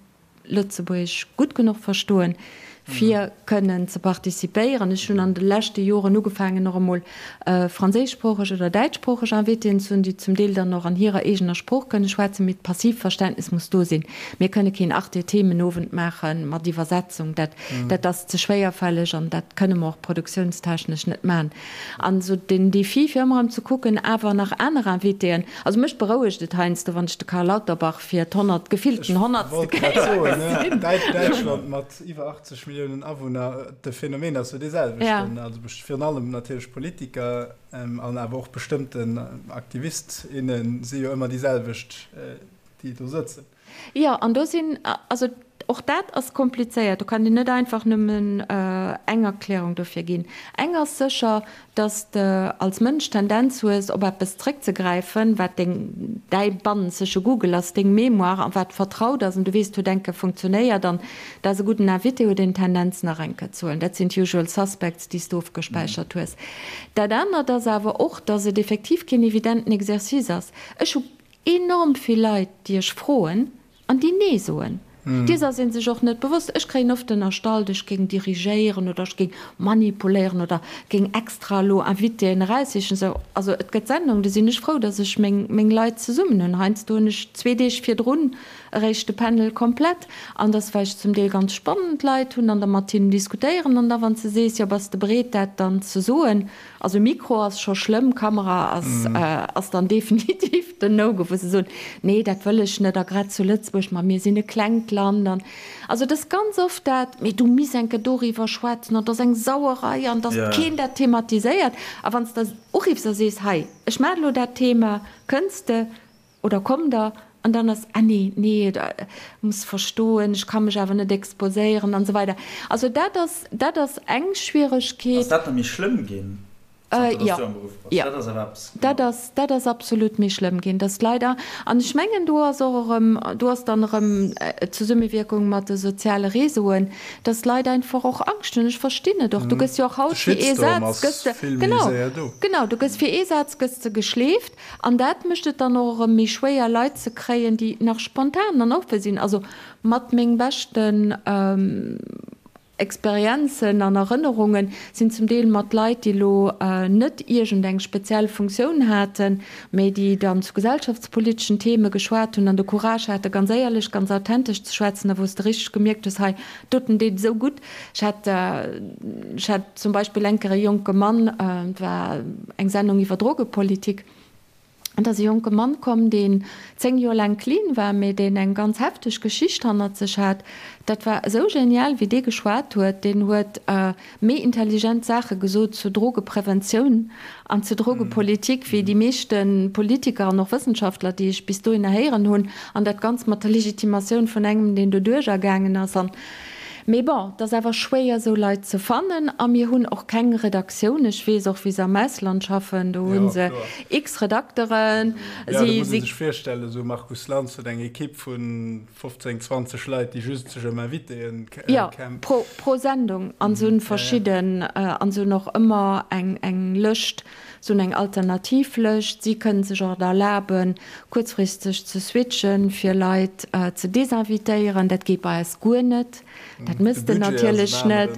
Lëtzebuergesch gutt genuch verstoen, fir kënnen ze participéieren. Ech hunn an de leschte Joren ugefaangen, och emol franséischsproocheg oder däitschsproocheg Invitéen ze hunn, déi zum Deel dann och an hirer eegener Sprooch kënne schwätzen, mee d'Passivverständnis muss do sinn. Mir kënne keen Arte-Themenowend maache mat Iwwersetzung. Dat Dat ass ze schwéierfälleg an dat kënne mer och produktiounstechnesch net maachen. An esou den Défi, fir ëmmer erëm ze kucken, awer nach aner Invitéen. Also mech berouegt et heiansdo, wann ech de Karl Lauterbach fir d'honnert, gefillten Ech honnertste wollt grad Kéier soen, ne, gesinn. Däitschland mat iwwer 80 Milliounen Awunner, de Phänomen ass jo dee selwechten. Also virun allem natierlech Politiker an awer och bestëmmten Aktivist, inne si jo ëmmer déi selwecht, déi do sëtzen. Jo, an do sinn, also och dat ass komplizéiert, do kann een net einfach nëmmen eng Erklärung dofir ginn. Eng ass sécher, dass de als Mënsch d'Tendenz hues, op eppes zréckzegräifen, wat deng, däi bannenzege Google ass, deng Mémoire, a wat vertraut ass an du weess, huet eng Kéier funktionéiert an dat ass e gudden Invité, huet een d'Tendenz nach eng Kéier ze huelen. Dat sinn d'usual suspects, déi s de ofgespäichert hues. Dat anert ass awer och, dass et effektiv keen evidenten Exercice ass. Ech hu Enorm vill Leit, déi ech froen an déi Nee soen. Dees ass ee sech och net bewosst. Ech kréien oft ënnerstallt, ech géing dirigéieren oder ech géing manipuléieren oder géing extra elo Invitéen eraussichen. Sou, also et gëtt Sendungen, do sinn ech frou, datt ech meng, meng Leit zesummen hunn. Heiansdo hunn ech zwee Deeg virdrun eréischt de Panel komplett an dass well ech zum Deel ganz spannend Leit hunn an da mat hinnen diskutéieren an da wann s de sees, jo bass de bereet dat dann ze soen, Also Mikro ass scho schlëmm, Kamera ass ass dann definitiv den No-Go, wou se soen, nee dat wëll ech net a grad zu Lëtzebuerg, ma mir sinn e klengt Land an also et ass ganz oft dat, mee du misst eng Kéier doriwwer schwätzen an et ass eng Sauerei an datt keen dat thematiséiert a wann s de uriffs a sees, hei ech maachen elo dat Thema, kënns de? Oder komm der, an dann ass, ah nee, nee, muss verstoen, ech ka mech awer net exposéieren an esou weider. Also dat ass, dat ass eng Schwieregkeet. Ass dat da méi schlëmm ginn? Zanter dass du am Beruff bass. Jo, Dat ass awer eppes, dat genau. ass, dat ass absolut méi schlëmm ginn, dass d'Leit, a an ech mengen, do ass och erëm, do ass dann erëm d'Zesummewierkung mat de soziale Réseauen, dass d'Leit einfach och Angscht hunn. Ech verstinn et och. Du gëss jo och De haut fir ee Shitstorm Saz ass gëss de, vill méi genau, séier do. genau, du gëss fir ee Saz gëss de geschleeft an dat mécht et dann och erëm méi schwéier, Leit ze kréien, déi nach spontan an oppe sinn. Also mat meng beschten Experienzen an Erënnerungen sinn zum Deel mat Leit, déi elo net iergend eng speziell Funktioun haten, mä déi dann zu gesellschaftspoliteschen Theme geschwat hunn an de Courage hate ganz éierlech, ganz authentesch ze schwätzen a wou s de richteg gemierkt hues, hei doten deet esou gutt. Ech hat, ech hat zum Beispill eng Kéier e jonke Mann, et war eng Sendung iwwer Drogepolitik, Et ass e jonke Mann komm, deen 10 Joer laang clean war, mee deen eng ganz hefteg Geschicht hannert sech hat. Dat war esou genial, wéi dee geschwat huet. Deen huet méi intelligent Saache gesot zur Drogepreventioun an zur Drogepolitik wéi déi meeschte Politiker an och Wëssenschaftler, déi ech bis dohinner héieren hunn. An dat Ganzt mat der Legitimatioun vun engem, deen doduercher gaangen ass. An Mee bon, et ass awer schwéier esou Leit ze fannen a mir hunn och keng Redaktioun. Ech weess och wéi se am Ausland schaffen, do hu se x Redakteren. Jo, do muss ee sech virstellen, esou Markus Lanz huet eng Ekipp vu 15, 20 Leit, déi just sech ëm Invitéen Jo, pro, pro Sendung an se hunn verschidden, an se hunn och ëmmer eng, eng Lëscht, se hunn eng alternativ Lëscht. Si kënnen sech och et erlaben, kuerzfristeg ze switchen, fir Leit ze desinvitéieren. Dat geet bei eis guer net. Dat méchs de natierlech net.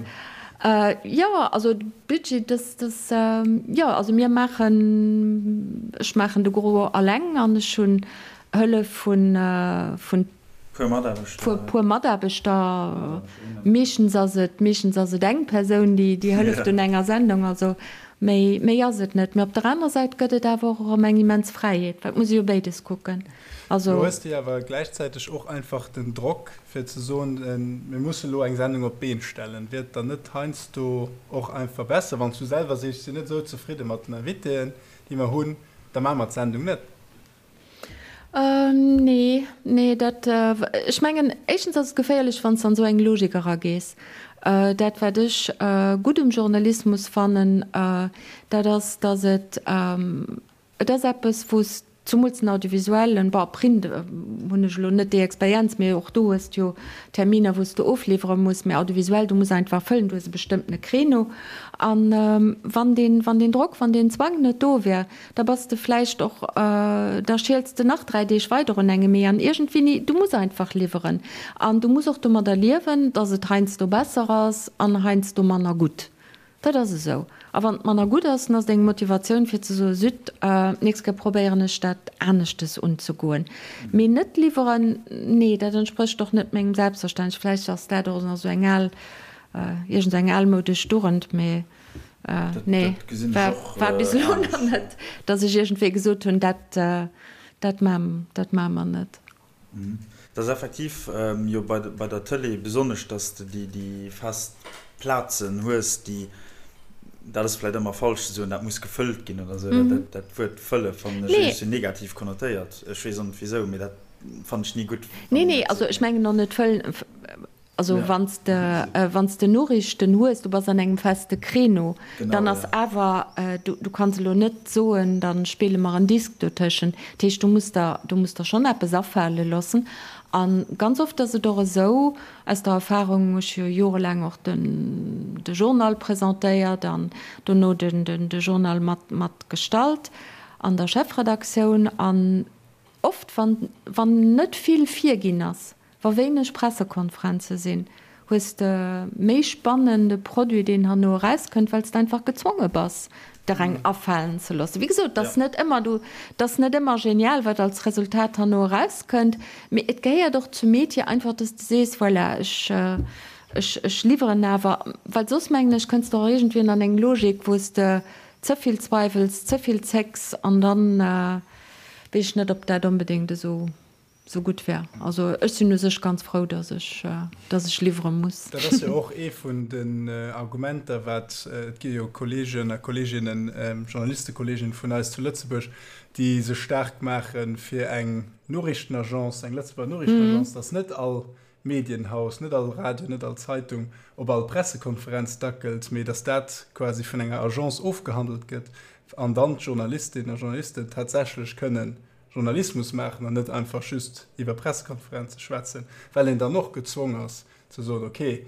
Jo, also de Budget, dass, dass, jo, also mir maachen, ech maachen de Gros alleng an ech hunn Hëllef vun, vun. Puer Mataarbechter. Puer Mataarbechter. Meeschtens ass et, meeschtens ass et eng Persoun, déi, déi hëlleft un enger Sendung. Also méi, méi ass et net. Mee op der anerer Säit gëtt et awer och erëm eng immens Fräiheet, well et muss ee jo béides kucken. Also. Do hues de awer gläichzäiteg och einfach den Drock, fir ze soen, mir musse lo eng Sendung op d'Been stellen. Wier et dann net heiansdo och einfach besser, wann s du selwer sees, ech sinn net esou zefridde mat den Invitéen, déi mer hunn, da maache mer d'Sendung net? Nee, nee, dat, ech mengen, éischtens ass et geféierlech, wann s de an esou eng Logik eragees. Dat, wat ech gutt um Journalismus fannen, dat ass, datt et, et ass eppes, wou s, zumools den Audiovisuellen, bon, Print hunn ech elo net déi Experienz, mee och do hues de jo Terminer, wou s de ofliwwere muss, mee Audiovisuell, du muss einfach fëllen, du hues e bestëmmtene Créneau. An wann deen, wann deen Drock, wann deen Zwang net do wär, Da bass de vläicht och, da schiels de nach 3 Deeg weider un engem Ee an iergendwéini, du muss einfach liwweren. An du muss och domadder liewen, dass et heiansdo besser ass an heiansdo manner gutt. Dat ass esou. A wann et manner gutt ass, dann ass et eng Motivatioun fir ze soen, Zut, d'nächst Kéier probéieren ech dat aneschtes unzegoen. Mee net liwweren, nee, dat entsprécht och net mengem Selbstverständnis. Vläicht ass dat och nach esou eng al, iergend eng almoudesch Dugend, mee. Nee, war bis elo nach net, datt ech iergendwéi gesot hunn, dat, dat maache mer net. Dat ass effektiv jo bei der Tëlee besonnesch, datt s de déi fest Plazen hues, déi, dat ass vläicht ëmmer falsch ze soen, dat muss gefëllt ginn oder esou. Dat Wuert fëlle fannen ech e bësschen negativ konnotéiert. Ech weess och net wisou, mee dat fannen ech ni gutt. Nee, nee, also ech mengen och net fëllen. Also wann s de, wann s de Noriichten hues, du bass an engem feste Créneau, dann ass awer, du, du kanns elo net soen, da spille mer en Disk dotëschent. Dat heescht, du muss der, du muss der schonn eppes afale loossen. A ganz oft ass et och esou, aus der Erfahrung, ech hu jo jorelaang och den, de Journal presentéiert an dono den, den, de Journal mat, mat gestalt an der Chefredaktioun, an oft, wann, wann net vill virginn ass, Wa wéineg Pressekonferenze sinn, hues de méi spannende Produit, deen herno erauskënnt, well s de einfach gezwonge bass, der eng afalen ze loossen. Wéi gesot, et ass net ëmmer du, et ass net ëmmer genial, wat als Resultat herno erauskënnt, mee et gehéiert och zum Metier einfach, dass de sees, voilà, ech, ech, ech liwweren awer, well soss, mengen ech, kënns de och iergendwéi an eng Logik, wou s de ze vill zweiwels, ze vill zécks an dann weess ech net, ob dat onbedéngt esou sou gutt wär. Also ech sinn u sech ganz frou, dass ech, dass ech liwwere muss. Dat ass jo och ee vun den Argumenter, wat, et gi jo Kolleegen a Kolleeginnen, Journalistekolleeginnen vun eis zu Lëtzebuerg, déi sech staark maache fir eng Noriichtenagence, eng Lëtzebuerger Noriichtenagence, dass net all. Medienhaus, net all Radio, net all Zeitung op all Pressekonferenz dackelt, mee datt dat quasi vun enger Agence ofgehandelt gëtt an dann d'Journalistinnen a Journalisten tatsächlech kënnen Journalismus maachen an net einfach just iwwer Pressekonferenze schwätzen, well een dann och gezwong ass ze soen, okay,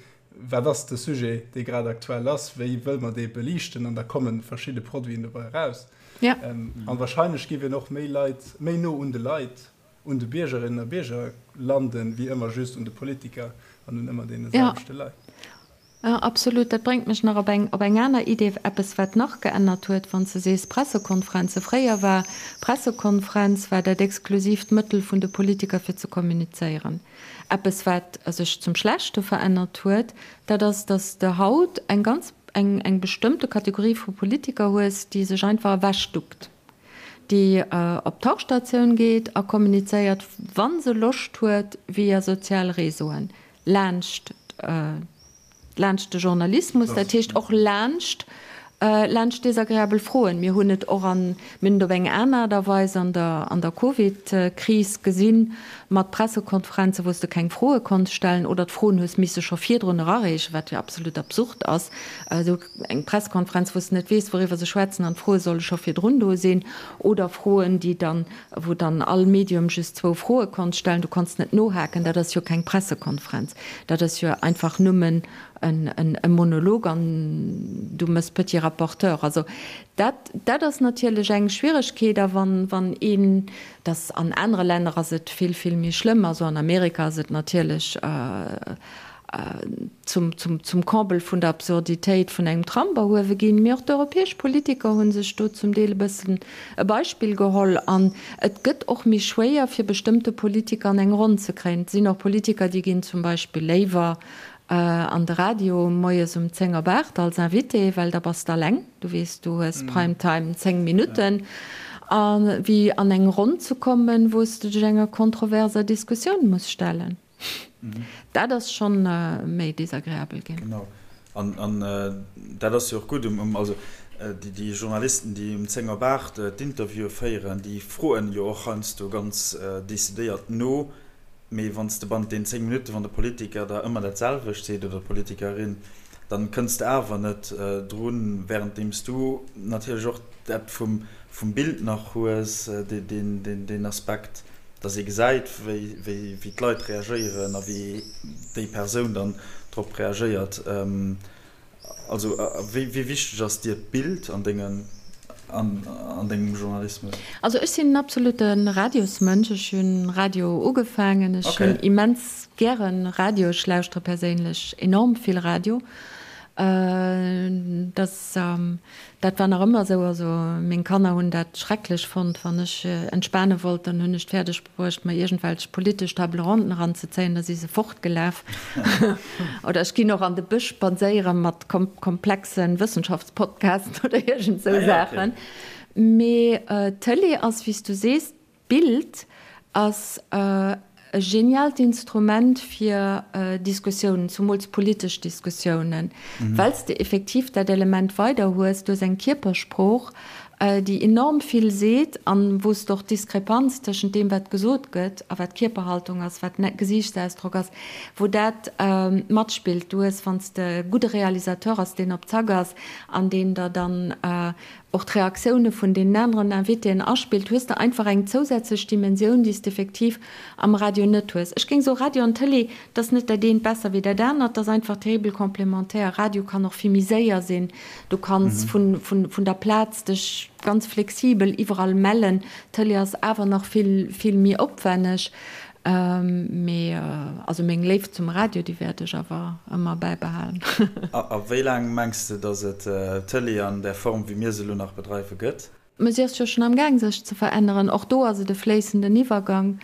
wat ass de Sujet, dee grad aktuell ass, wéi wëlle mer dee beliichten an da komme verschidde Produiten dobäi eraus. An wahrscheinlech géif een och méi Leit, méi no un de Leit, un de Biergerinnen a Bierger landen, wéi ëmmer just un de Politiker an un ëmmer deene selwechte Leit. Jo, absolut. Dat bréngt mech nach op eng, op eng aner Idee, eppes wat nach geännert huet, wann s de sees Pressekonferenze. Fréier war Pressekonferenz war dat exklusiivt Mëttel vun de Politiker fir ze kommunizéieren. Eppes wat sech zum Schlechte verännert huet, dat ass, datt s de haut eng ganz, eng, eng bestëmmte Kategorie vu Politiker hues, déi sech einfach ewechduckt, déi op d'Tauchstatioun geet a kommunizéiert, wa se Loscht huet, via sozial Réseauen. Laanscht, laanscht de Journalismus, dat heescht och laanscht, laanscht desagreabel Froen. Mir hunn et och an, mir hunn et op eng aner Aart a Weis an der, an der Covid-Kris gesinn, mat Pressekonferenzen, wou s de keng Froe konns stellen oder d'Froen hues misse scho virdrun erareechen, wat jo absolut absurd ass. Esou eng Pressekonferenz, wou s de net weess, wouriwwer se schwätzen an d'Froe solle scho virdrun do sinn oder Froen, déi dann wou dann all Medium just zwou Froe konnt stellen, du konns net nohaken, dat ass jo keng Pressekonferenz, dat ass jo einfach nëmmen e Monolog an du mëss petit rapporteur. Also dat, dat ass natierlech eng Schwieregkeet. A wann, wann een, dass an anere Länner ass et vill, vill méi schlëmm, also an Amerika ass et natierlech, zum, zum, zum Comble vun der Absurditéit vun engem Trump erhuewe ginn. Mee och d'europäesch Politiker hu sech do zum Deel e bëssen e Beispill geholl. An et gëtt och méi schwéier, fir bestëmmte Politiker an eng Ronn ze kréien. Et sinn och Politiker, déi ginn zum Beispill léiwer an de Radio moies um 10 op 8 als Invité, well da bass de alleng, du weess, du hues Prime Time 10 Minutten, a wéi an eng Ronn ze kommen, wou s de dech enger kontroverser Diskussioun muss stellen. Dat ass schonn méi desagreabel ginn. Genau. An dat ass jo och gutt um, also déi Journalisten, déi um 10 op 8 d'Interviewe féieren, déi froen jo och heiansdo ganz decidéiert no. Mee wann s de bannent den 10 Minutten, wann de Politiker der ëmmer dat selwecht seet oder d'Politikerin, dann kënns de awer net drun, wärenddeem s du natierlech och dat vum Bild nach hues, deen Aspekt. dass ee gesäit, wéi d'Leit reagéieren a wéi déi Persoun dann drop reagéiert. Also wéi wichteg ass dir d'Bild an dengem Journalismus? Also ech sinn en absolute Radiosmënsch. Ech hunn Radio ugefaangen. Ech hunn immens gäre Radio. Ech lauschtere perséinlech enorm vill Radio. Dass Dat war nach ëmmer esou. Also meng Kanner hunn dat schrecklech fonnt. Wann ech entspane wollt, dann hunn ech et fäerdeg bruecht, mer iergendwelch politesch Table ronden eranzezéien. Da si se fortgelaf. Oder ech ginn och an de Bësch spadséiere mat komplexe Wëssenschaftspodcasten oder iergend esou Saachen. Mee d'Tëlee ass, wéi s du sees, D'Bild ass e genialt Instrument fir Diskussiounen, zumools politesch Diskussiounen, well s de effektiv dat Element weider hues, du hues eng Kierpersprooch, déi enorm vill seet an wou s de och d'Diskrepanz tëschent deem, wat gesot gëtt a wat Kierperhaltung ass, wat Gesiichtsausdrock ass, wou dat matspillt. Du hues, wann s de e gudde Realisateur ass, deen op Zack ass an deen der dann och d'Reaktioune vun deenen aneren Invitéen aspillt, hues de einfach eng zousätzlech Dimensioun, déi s de effektiv am Radio net hues. Ech géing soen, Radio an Tëlee, dat ass net dat eent besser wéi dat anert, dat ass einfach terribel complémentaire. Radio kann och vill méi séier sinn, du kanns vun der Plaz dech ganz flexibel iwwerall mellen. Tëlee ass awer nach vill, vill méi opwenneg. Mee also meng Léift zum Radio, déi wäert ech awer ëmmer bäibehalen. A wéi laang mengs de, datt et d'Tëlee an där Form, wéi mir se elo nach bedreiwen, gëtt? Mä si ass jo schonn am Gaang sech ze veränneren. Och do ass et e fléissenden Iwwergang.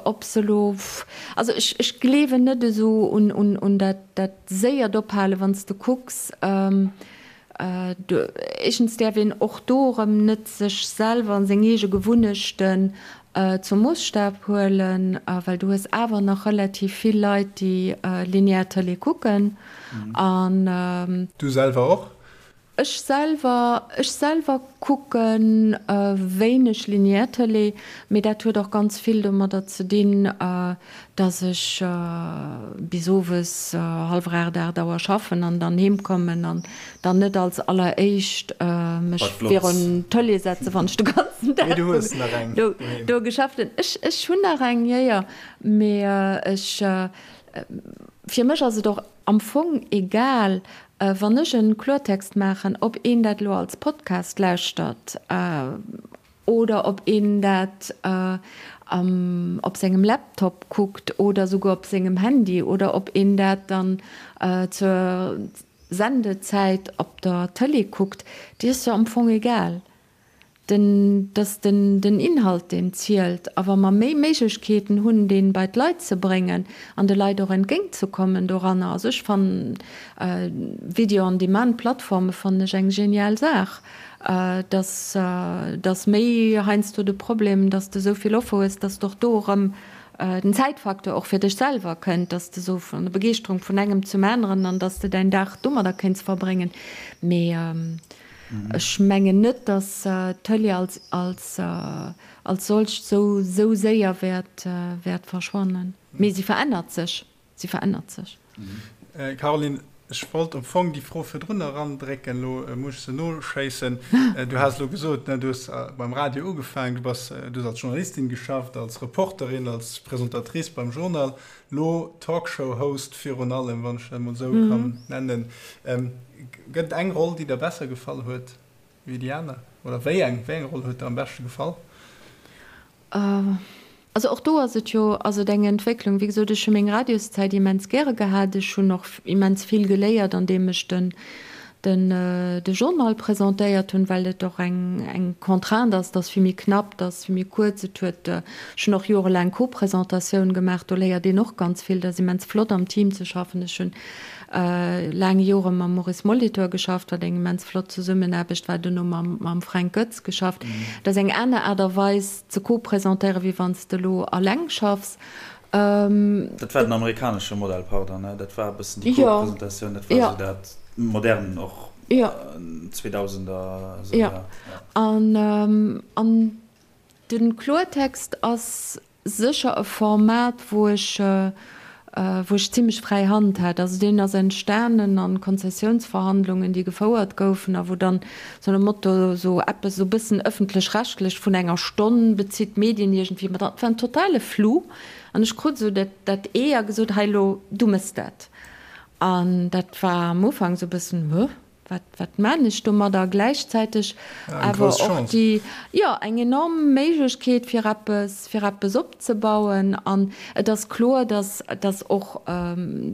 Ob se elo, also ech, ech gleewen net esou un, un dat, dat séiert Ophalen, wann s de kucks, Éischtens däerf een och do erëm net sech selwer an seng eege Gewunnechten zum Moosstaf huelen, well du hues awer nach relativ vill Leit, déi linear Tëlee kucken. An. Du selwer och? Ech selwer, ech selwer kucke wéineg linear Tëlee, mee dat huet och ganz vill domadder ze dinn, dass ech bis owes hallwer 8, 8 Auer schaffen an dann heem kommen an dann net als alleréischt mech virun d'Tëlee setzen, wann ech de ganzen Dag do geschafft hunn. Ech, ech hunn nach eng, jo, jo, mee ech, fir mech ass et och am Fong egal, wann ech en Kloertext maachen, ob een dat elo als Podcast lauschtert oder ob een dat op sengem Laptop kuckt oder souguer op sengem Handy oder ob een dat dann zur Sendezäit op der Tëlee kuckt, déi ass jo am Fong egal. Den, dass den, den Inhalt, deen zielt. A wa mer méi Méiglechkeeten hunn, dee bei d'Leit ze bréngen an de Leit och entgéintzekommen doranner, also ech fannen Video-on-demand-Plattforme fannen ech eng genial Saach, dass, dass méi heiansdo de Problem, dass de esou vill Offer hues, dass de och do erëm den Zäitfaktor och fir dech selwer kënnt, dass de esou vun der Begeeschterung vun engem zum aneren an dass de däin Dag domadder kéints verbréngen. Mee Ech mengen net, datt d'Tëlee als, als, als solcht sou, sou séier wäert, wäert verschwannen. Mee si verännert sech. Si verännert sech. Caroline, ech wollt am Fong déi Fro virdrun erandrécken, elo muss ech se noschéissen. Du has elo gesot, ne, du hues beim Radio ugefaangen, du bass, du hues als Journalistin geschafft, als Reporterin, als Presentatrice beim Journal. Lo Talkshow-Host virun allem, wann ech dat emol esou kann nennen. Gëtt et eng Roll, déi der besser gefall huet wéi déi aner? Oder wéi eng, wéi eng Roll huet der am beschte gefall? Also och do ass et jo, ass et eng Entwécklung. Wéi gesot, ech hu meng Radioszäit immens gäre gehat. Ech hunn och immens vill geléiert, andeem ech den den de Journal presentéiert hunn, well et och eng eng Contrainte ass, et ass vill méi knapp, et ass vill méi kuerz. Et huet, ech hunn och jorelaang Co-Presentatioun gemaach, do léiert een och ganz vill, et ass immens flott am Team ze schaffen. Ech hunn laang Jore mam Maurice Molitor geschafft, wat eng immens flott Zesummenaarbecht war, duerno mam mam Fränk Goetz geschafft. Et ass eng aner Aart a Weis ze co-presentéieren, wéi wann s de elo alleng schaffs. Dat war den amerikanesche Modell, pardon, ne? Dat war e bëssen déi Co-Presentatioun, dat war esou dat modern och 2000er esou, jo. An an de Kloertext ass sécher e Format, wou ech wou ech zimlech fräi Hand hat. Also deen ass entstanen an Konzessiounsverhandlungen, déi gefouert goufen a wou dann sou nom Motto sou eppes sou bëssen ëffentlech-rechtlech vun enger Stonn bezitt d'Medien iergendwéi mat an. Et war en totale Flou an ech krut sou dat dat Ee a gesot, hei elo, du mëss dat. An dat war am Ufank sou bëssen, Huh? Wat, wat maan ech domadder? Gläichzäiteg awer och déi, jo, eng enorm Méiglechkeet fir eppes, fir eppes opzebauen. An et ass kloer, dass, dass och,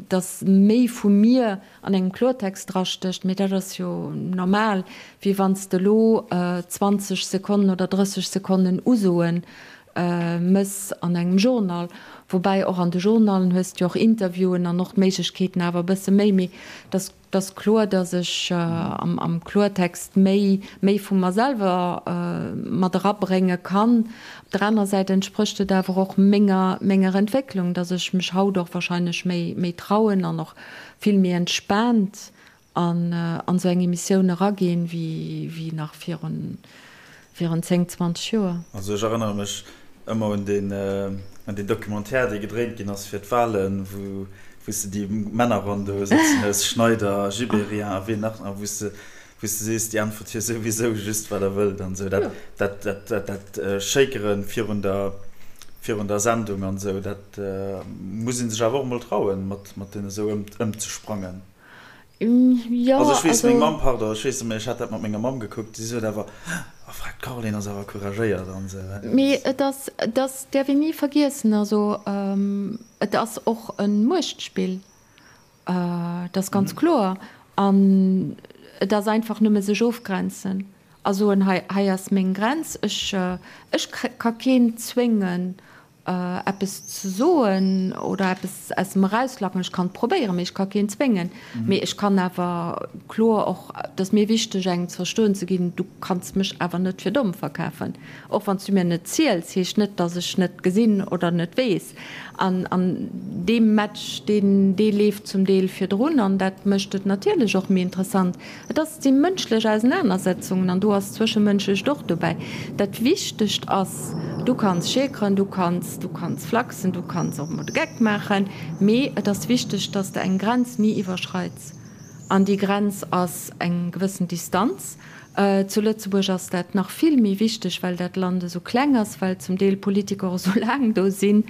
dass méi vu mir an engem Klortext drastécht, mee dat ass jo normal, wéi wann s de elo 20 Sekonnen oder 30 Sekonnen Usoen mëss an engem Journal. Woubäi och an de Journalen hues de jo och Interviewen an och d'Méiglechkeeten awer e bësse méi, mee dass, 't ass kloer, dass ech am Kloertext méi méi vu mer selwer mat erabrénge kann. Op der anerer Säit entsprécht et awer och menger menger Entwécklung, dass ech mech haut och wahrscheinlech méi méi trauen an och vill méi entspaant an an esou eng Emissioun eraginn, wéi wéi nach virun virun 10, 20 Joer. Also ech erënnere mech ëmmer un deen, un deen Documentaire, dee gedréint ginn ass fir d'Wahlen, wou, wou s de déi Männerronn do sëtzen hues, Schneider, Gibéryen a wien nach, a wou s de, wou s de sees, déi äntwert jo souwisou just, wat der wëllt an esou. Dat, dat, dat, dat, dat Shakere virun der, virun der Sendung an esou, dat muss ee sech awer och emol trauen, mat, mat deene esou ëm, ëmzesprangen. Jo, Also ech weess, meng Mamm, pardon, ech weess net méi, ech hat dat mat menger Mamm gekuckt, si sot awer, Oh, frag d'Caroline ass awer couragéiert an esou. Mee et ass, et ass, däerf een ni vergiessen, also et ass och e Muechtspill, dat ass ganz kloer. An et ass einfach nëmme sech ofgrenzen a soen, hei, hei ass meng Grenz, ech, ech ka keen zwéngen. eppes ze soen oder eppes aus em erauslacken. Ech kann et probéieren, mee ech ka keen zwéngen. Mee ech kann awer kloer och, et ass mir wichteg engem ze verstoen ze ginn, du kanns mech awer net fir domm verkafen. Och wann s du mir net ziels, heescht net, datt ech net gesinn oder net weess. An an dee Match, deen dee leeft zum Deel virdrun an dat mécht et natierlech och méi interessant. Et ass, si mënschlech Ausenanersetzungen an do ass d'Zwëschemënschlecht och dobäi. Dat Wichtegt ass, du kanns schäkeren, du kanns, du kanns flachsen, du kanns och emol de Geck maachen, mee et ass wichteg, dass de eng Grenz ni iwwerschreits. An déi Grenz ass eng gewëssen Distanz. Zu Lëtzebuerg ass dat nach vill méi wichteg, well dat Land esou kleng ass, well zum Deel Politiker och esou laang do sinn.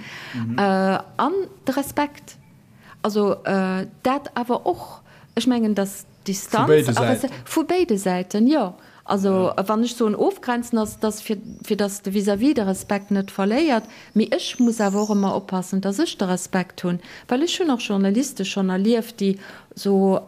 An de Respekt. Also dat awer och. Ech mengen, dass d'Distanz a Respekt. Vu béide Säiten, jo. Also wann ech soen ofgrenzen, ass et fir, fir dass de Vis-à-vis de Respekt net verléiert. Mee ech muss awer och ëmmer oppassen, dass ech de Respekt hunn, well ech hunn och Journaliste schonn erlieft, déi sou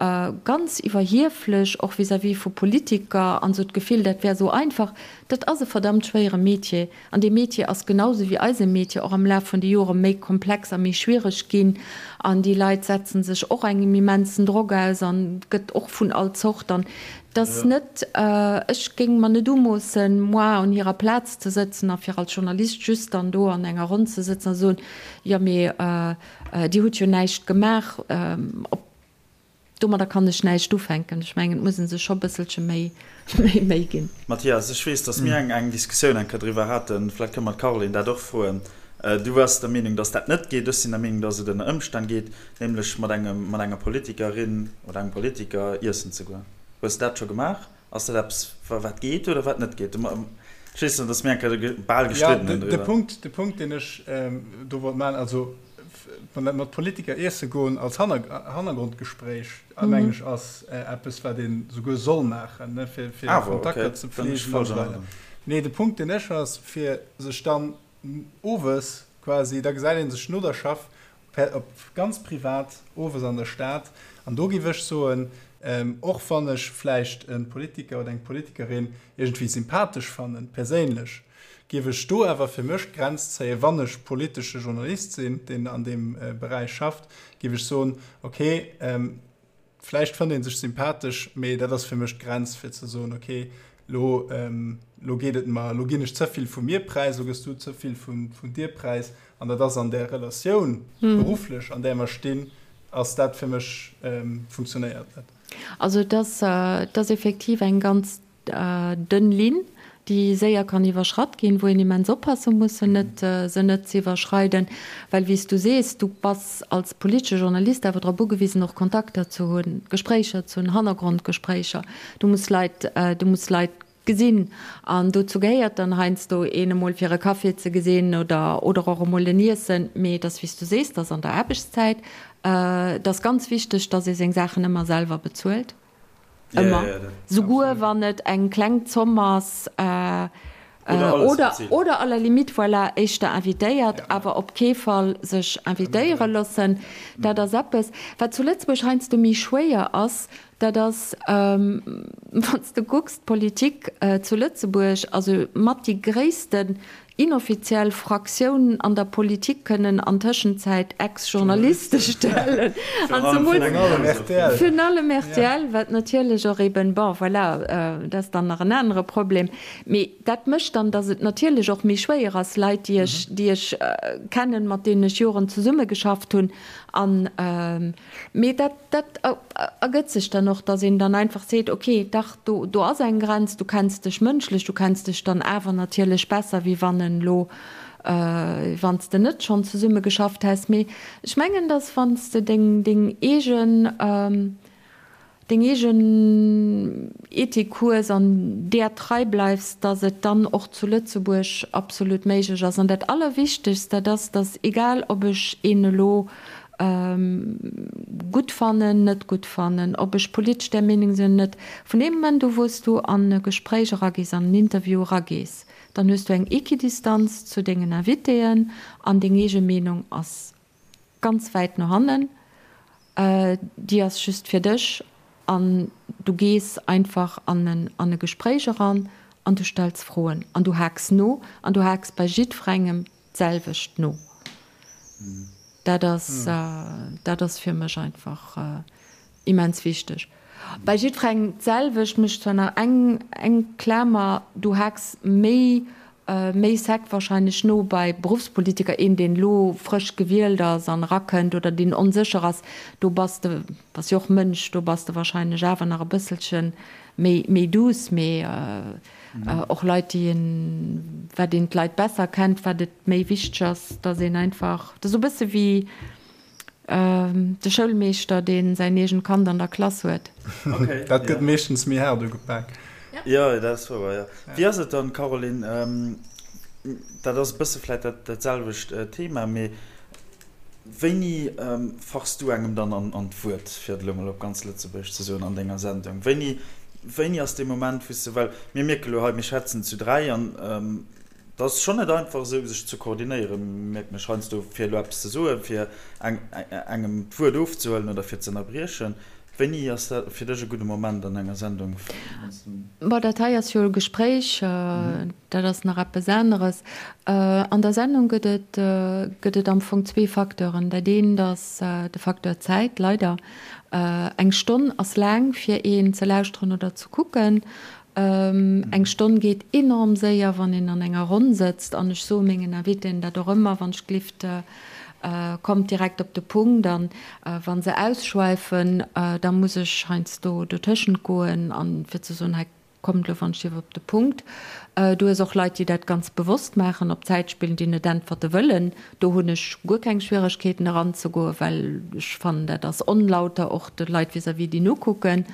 ganz iwwerhieflech och vis-à-vis vu Politiker an sou d'Gefill, dat wär sou einfach. Dat ass e verdammt schwéiere Metier. An dee Metier ass genau sou wéi eise Metier och am Laf vun de Jore méi komplex a méi schwiereg ginn. An déi Leit setzen sech och engem immensen Drock aus an et gëtt och vun all Zort. An et ass net, ech géing mer net umoossen, moi un hirer Plaz ze sëtzen a fir als Journalist just dann do an enger Ronn ze sëtzen a soen, jo mee Dir hutt jo näischt gemaach. Op Domadder kann ech näischt ufänken. Ech mengen, et muss ee sech scho bësselche méi Méi ginn. Mathias, ech weess, datt mir eng Diskussioun eng Kéier driwwer haten. Vläicht kënne mer d'Caroline dat och froen. Du waars der Meenung, datt dat net geet. Ech sinn der Meenung, datt et ënner Ëmstänn geet, nämlech mat engem, mat enger Politikerin oder engem Politiker iessen ze goen. Hues de dat scho gemaach? Ass dat eppes, wat geet oder wat net geet? Ech weess nach, datt mir eng Kéier bal gestridden hunn driwwer. Jo, de Punkt, deen ech do wollt maachen, also mat Politiker iesse goen als Hannergrondgespréich, mengen ech, ass eppes, wat ee souguer soll maachen, fir Kontakter ze pflegen an esou weider. Nee, de Punkt, deen ech ass, fir sech dann owes quasi, da gesäit ee sech no der Schaff per op ganz privat owes an der Stad. An do géif ech soen, och wann ech vläicht e Politiker oder eng Politikerin iergendwéi sympathesch fannen, perséinlech, géif ech do awer fir mech d'Grenz zéien, wann ech politesche Journalist sinn, deen an deem Beräich schafft, géif ech soen, okay, Vläicht fënnt ee sech sympathesch, mee dat ass fir mech d'Grenz, fir ze soen, okay, lo, lo geet et mer, lo ginn ech ze vill vu mir präis, lo gëss du ze vill vun dir präis. An dat ass an där Relatioun, berufflech, an där mer stinn, ass dat fir mech, funktionéiert net. Also et ass, et ass effektiv eng ganz Dënn Linn, déi séier kann iwwerschratt ginn, wou een immens oppasse muss, se net, se net ze iwwerschreiden. Well, wéi s du sees, du bass als politesche Journalist awer drop ugewisen, och Kontakter ze hunn, Gespréicher ze hunn, Hannergrondgespréicher. Du muss Leit, du muss Leit gesinn. An dozou gehéiert dann heiansdo, een emol fir e Café ze gesinn oder, oder och emol en Iessen. Mee et ass, wéi s du sees, et ass an der Aarbechtszäit. Et ass ganz wichteg, dass ee seng Saachen ëmmer selwer bezuelt. Ëmmer. Souguer wann et eng kleng Zomm ass oder, oder à la limite, voilà, éischter invitéiert, awer op kee Fall sech invitéiere loossen. Dat ass eppes, wat zu Lëtzebuerg heiansdo méi schwéier ass, dat ass, wann s de kucks, d'Politik zu Lëtzebuerg, also mat déi gréissten Inoffiziell Fraktioun an der Politik kënnen an Tëschenzäit Ex-Journaliste stellen. An zemools virun allem rtl, wat natierlech och eben, bon, voilà, dat ass dann nach en anere Problem. Mee dat mécht dann, datt et natierlech och méi schwéier ass, Leit, déi ech, déi ech kennen, mat deenen ech Joren zesummegeschafft hunn an, Mee dat, dat ergëtt sech dann och, dass een dann einfach seet, okay, dach, do, do ass eng Grenz, du kenns dech mënschlech, du kenns dech dann awer natierlech besser, wéi wann en elo, wann s de net schonn zesumme geschafft häss. Mee ech mengen, dass wann s de deng, deng eegen, deng eegen Ethik hues an där trei bleifs, dass et dann och zu Lëtzebuerg absolut méiglech ass. An dat Allerwichtegst, dat ass, dass egal ob ech een elo gutt fannen, net gutt fannen, ob ech politesch där Meenung sinn oder net, vun deem Moment u wou s du an e Gespréich eragees, an en Interview eragees, dann hues du eng Equidistanz zu dengen Invitéen an deng eege Meenung ass ganz wäit no hannen, déi ass just fir dech an du gees einfach an en an e Gespréich eran an du stells Froen an du haaks no an du haaks bei jiddwerengem. d'selwecht no. Dat ass, dat ass fir mech einfach immens wichteg. Bei jiddwerengem d'selwecht, mécht zwar nach eng, eng Klamer, du haaks méi, méi sec wahrscheinlech no bei Beruffspolitiker, een deen elo frësch gewielt ass an erakënnt oder deen onsécher ass, do bass de, bass jo och Mënsch, do bass de wahrscheinlech awer nach e bësselche méi, méi douce, mee och Leit déi een, wat een d'Leit besser kennt, wat et méi wichteg ass, dass een einfach, dat ass esou e bësse wéi, De Schoulmeeschter, dee säin eegent Kand an der Klass huet. Dat gëtt meeschtens méi haart ugepak. Jo, dat ass wouer, jo. Wéi ass et dann, Caroline, dat ass e bësse vläicht dat selwecht Thema, mee wéini fachs du engem dann an d'Wuert, fir et elo mol op ganz Lëtzebuergesch ze soen, an denger Sendung? Wéini, wéini ass dee Moment, wou s de, well mir mierke lo hei, mir schwätzen zu 3 an Et ass schonn net einfach esou sech ze koordinéieren, mierken ech heiansdo, fir elo eppes ze soen, fir engem d'Wuert ofzehuelen oder fir ze ënnerbriechen. Wéini ass dat fir dech e gudde Moment an enger Sendung? Bon, dat hei ass jo e Gespréich, dat ass nach eppes aneres. An der Sendung gëtt et, gëtt et am Fong zwee Facteuren. Dat eent ass de Facteur Zäit, leider. Eng Stonn ass laang fir een ze lauschteren oder ze kucken. Eng Stonn geet enorm séier, wann een an enger Ronn sëtzt. An ech soe mengen Invitéen dat och ëmmer, wann ech glift, kommt direkt op de Punkt. An wa se ausschweifen, da muss ech heiansdo dotëschent goen an fir ze soen, hei kommt elo wann ech dierf op de Punkt. Du hues och Leit, déi dat ganz bewosst maachen, op Zäit spillen, déi net äntwerte wëllen. Do hunn ech guer keng Schwieregkeeten eranzegoen, well ech fannen, dat ass onlauter och de Leit vis-à-vis, déi nokucken.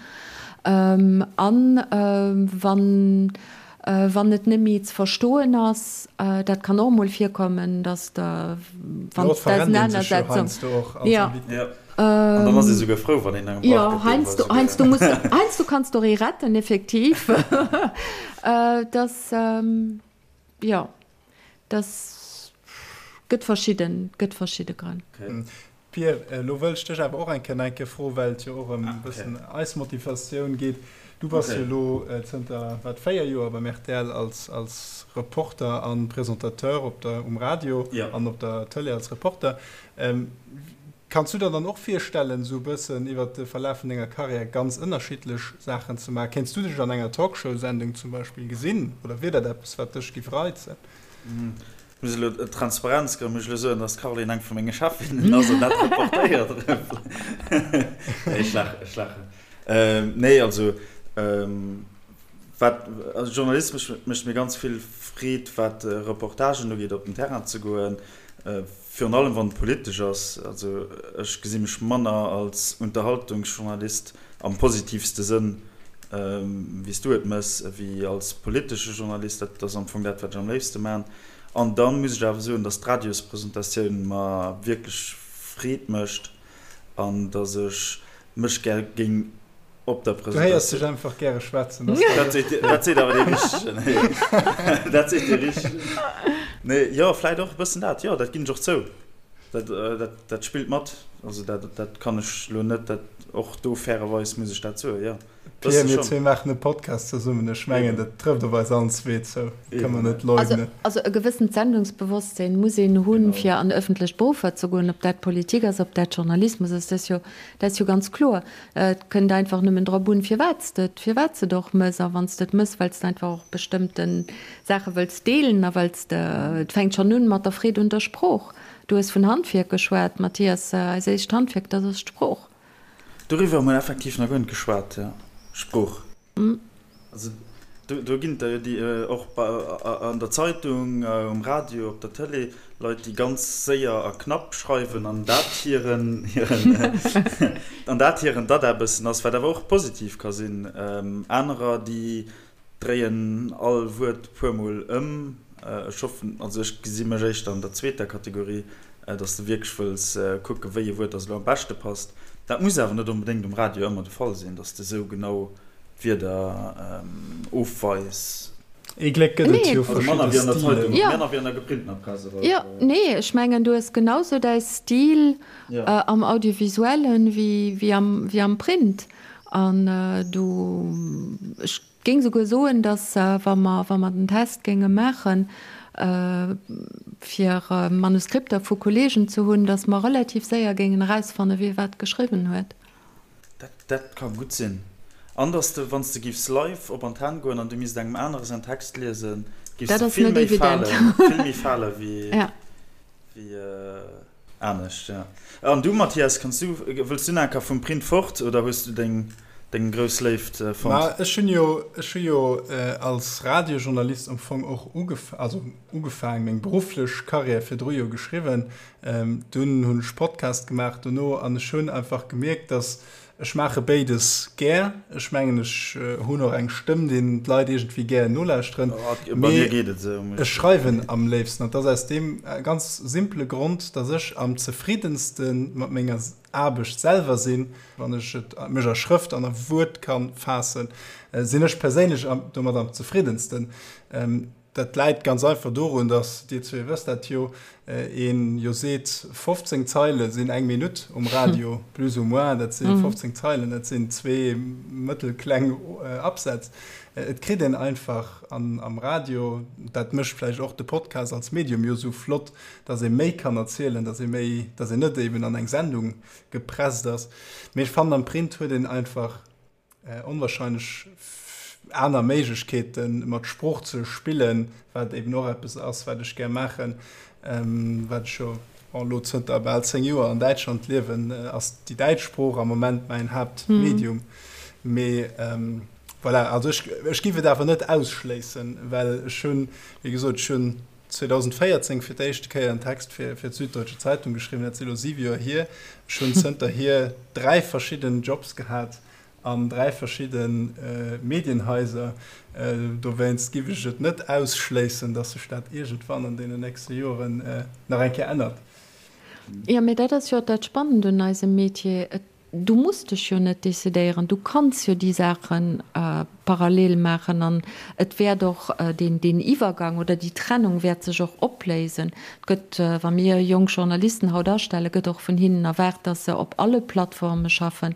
An wann, wann et net méi ze verstoen ass, dat kann och emol virkommen, dass der, wann d'Ausenanersetzung, jo. An dann ass ee souguer frou, wann een engem brauch gëtt, deen jo, heiansdo muss, heiansdo kanns de och ee retten, effektiv. Dass, jo. Dass gëtt verschidden, gëtt verschidde Grënn. Pir, elo wëll ech dech awer och eng Kéier nach eng Kéier froen, well et jo och ëm e bëssen eis Motivatioun geet. Du bass jo elo zënter wat, 4 Joer beim rtl als, als Reporter a Presentateur op der, um Radio an op der Tëlee als Reporter. Kanns du der dann och virstellen, esou e bëssen iwwert de Verlaf vun denger Karriär ganz ënnerschiddlech Saachen ze maachen? Kéints du dech an enger Talkshow-Sendung zum Beispill gesinn oder wier dat eppes, wat dech géif reizen? Ech muss elo, Transparenzgrënn, muss ech elo soen, dass d'Caroline eng vu menge Chefinnen ass an dat reportéiert. Nee, ech laachen, ech laachen. Nee, also, wat, also journalistesch mécht mir ganz vill Freed, wat Reportagen ugeet, op den Terrain ze goen, Virun allem wann et politesch ass. Also ech gesi mech manner als Unterhaltungsjournalist am positivste Sënn, wéi s du et mëss, ewéi als politesche Journalist. Dat ass am Fong dat, wat ech am léifste man. An da muss ech awer soen, datt d'Radiospresentatioun mer wierklech Freed mécht an datt ech mech gär géing op der Du héiers dech einfach gäre schwätzen. Dat seet awer dee Richtegen. Dat seet dee Richtegen. Nee, jo, vläit och e bëssen dat. Jo, dat ginn ech och zou. Dat, dat, dat spillt mat. Also dat, dat kann ech elo net, dat, och do fairerweis muss ech dat soen, jo. Pierre, mir zwee maachen e Podcast zesummen. Ech mengen, dat trëfft op eis allen zwee zou. Dat kënne mer net leugnen. Also e gewëssent Sendungsbewosstsinn muss een hunn, fir an ëffentlech Beruffer ze goen, ob dat Politik ass, ob dat Journalismus ass, dat ass jo, dat ass jo ganz kloer. Et kënnt einfach nëmmen drop un, firwat s de et, firwat s de et och mëss. A wann s de et mëss, well s de einfach och bestëmmte Saache wëlls deelen a well s de, et fänkt schonn un mat der Freed un der Sprooch. Du hues vun Handwierk geschwat, Mathias, eis éischt Handwierk, dat ass d'Sprooch. Doriwwer hu mer effektiv nach guer net geschwat, jo, Sprooch. Also do ginn et der jo déi och an der Zeitung, um Radio, op der Tëlee, Leit déi ganz séier a knapp schreiwen an dat hiren an dat hiren Dada e bëssen ass, wat awer och positiv ka sinn. Anerer déi dréien all Wuert e puermol ëm. Ech hoffen, also ech gesi mech éischter an der zweeter Kategorie, datt s de wierklech wëlls kucken, wéi e Wuert datt elo am beschte passt. Dat muss awer net onbedéngt um Radio ëmmer de Fall sinn, datt s de esou genau d'Wierder ofweis. Ee Gléck gëtt et jo verschidde Stilen. Manner wéi an der geprintener Press, oder? Jo, nee, ech mengen, du hues genau sou däi Stil am Audiovisuellen wéi am Print. An du, ech géing souguer soen, dass, wa mer, wa mer den Test géinge maachen. fir Manuskripter vu Kolleegen ze hunn, datt mer relativ séier géingen erausfannen, wie wat geschriwwen huet. Dat ka gutt sinn. An datt s de, wann s de giffs live op Antenn goen an du misst engem anere säin Text liesen, giffs Dat de ass vill net méi evident. falen, vill méi fale wéi Ja. wéi anescht. Ja. An du, Mathias, kanns du, wëlls du nach eng Kéier vum Print fort oder hues du deng deng grouss Léift fonnt? Ma ech hunn jo, ech hu jo als Radiojournalist am Fong och ugef, also ugefaang, meng berufflech Karriär virdru jo geschriwwen. Dunn hunn ech Podcast gemaach dono an ech hunn einfach gemierkt, dass ech maache béides gär. Ech mengen ech hunn och eng Stëmm, deen d'Leit iergendwéi gär nolauschteren. Mee ech schreiwen am léifsten an dat ass aus deem ganz simpele Grond, dass ech am zefriddenste mat menger Aarbecht selwer sinn, wann ech et mech a Schrëft an a Wuert ka faassen, sinn ech perséinlech domat am zefriddensten. Dat läit ganz einfach dorun, datt, Dir zwee wësst dat jo, een jo seet, 15 Zeile sinn eng Minutt um Radio, plus ou moins, dat si 15 Zeilen, dat sinn zwee mëttelkleng Absätz. Et kritt een einfach am Radio, dat mécht vläicht och de Podcast als Medium jo esou flott, datt ee méi kann erzielen, datt ee méi, datt een net eben an eng Sendung gepresst ass. Mee ech fannen, am Print huet een einfach onwahrscheinlech aner Méiglechkeeten, mat Sprooch ze spillen, wat eben och eppes ass, wat ech gär maachen, wat ech jo elo zënter bal 10 Joer an Däitschland liewen, ass déi däitsch Sprooch am Moment mäin Haaptmedium. Mee voilà, also ech, ech géif et awer net ausschléissen, well ech hunn, wéi gesot, ech hunn 2014 fir d'éischte Kéier en Text fir fir d'Süddeutsche Zeitung geschriwwen, dat si elo 7 Joer hier. Ech hunn zënterhier 3 verschidden Jobs gehat an 3 verschidde Medienhaiser. Dowéinst giff ech et net ausschléissen, dass sech dat iergendwann an deenen nächste Joren nach eng Kéier ännert. Jo, mee dat ass jo och dat Spannend un eisem Metier. Et Du muss dech jo net decidéieren, du kanns jo déi Saache parallel maachen an et wäert och deen, deen Iwwergang oder déi Trennung wäert sech och opléisen. Et gëtt, wa mir jonk Journalisten haut astellen, gëtt och vun hinnen erwaart, dass se op alle Plattforme schaffen,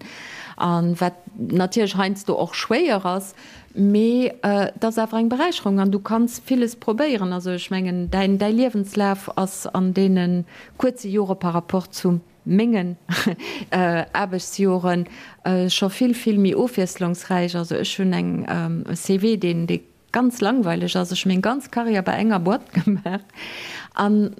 a wat natierlech heiansdo och schwéier ass, mee et ass awer eng Beräicherung an du kanns villes probéieren. Also ech mengen, däin, däi Liewenslaf ass an deene kuerze Jore par rapport zum mengen Aarbechtsjoren scho vill, vill méi ofwiesslungsräich. Also ech hunn eng e CV, deen, dee ganz langweileg ass. Ech hu meng ganz Karriär bei enger Boîte gemaach an,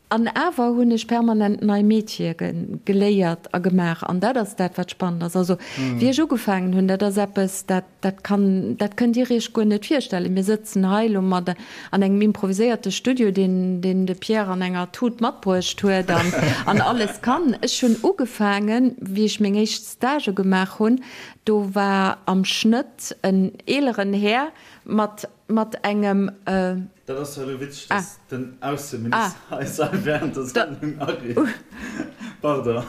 an awer hunn ech permanent nei Métiere geléiert a gemaach. An dat ass dat, wat spannend ass. Also wéi ech ugefaangen hunn, dat ass eppes, dat, Dat kann, dat kënnt Dir Iech guer net virstellen. Mir sëtzen hei elo mat an engem improviséierte Studio, deen, deen de Pierre an enger Tut matbruecht huet an, an alles kann. Ech hunn ugefaangen, wéi ech meng éischt Stagë gemaach hunn, do war am Schnëtt en eeleren Här mat, mat engem, Dat ass jo elo witzeg, dass den Ausseminister eis hei während der Sendung ariift. Pardon,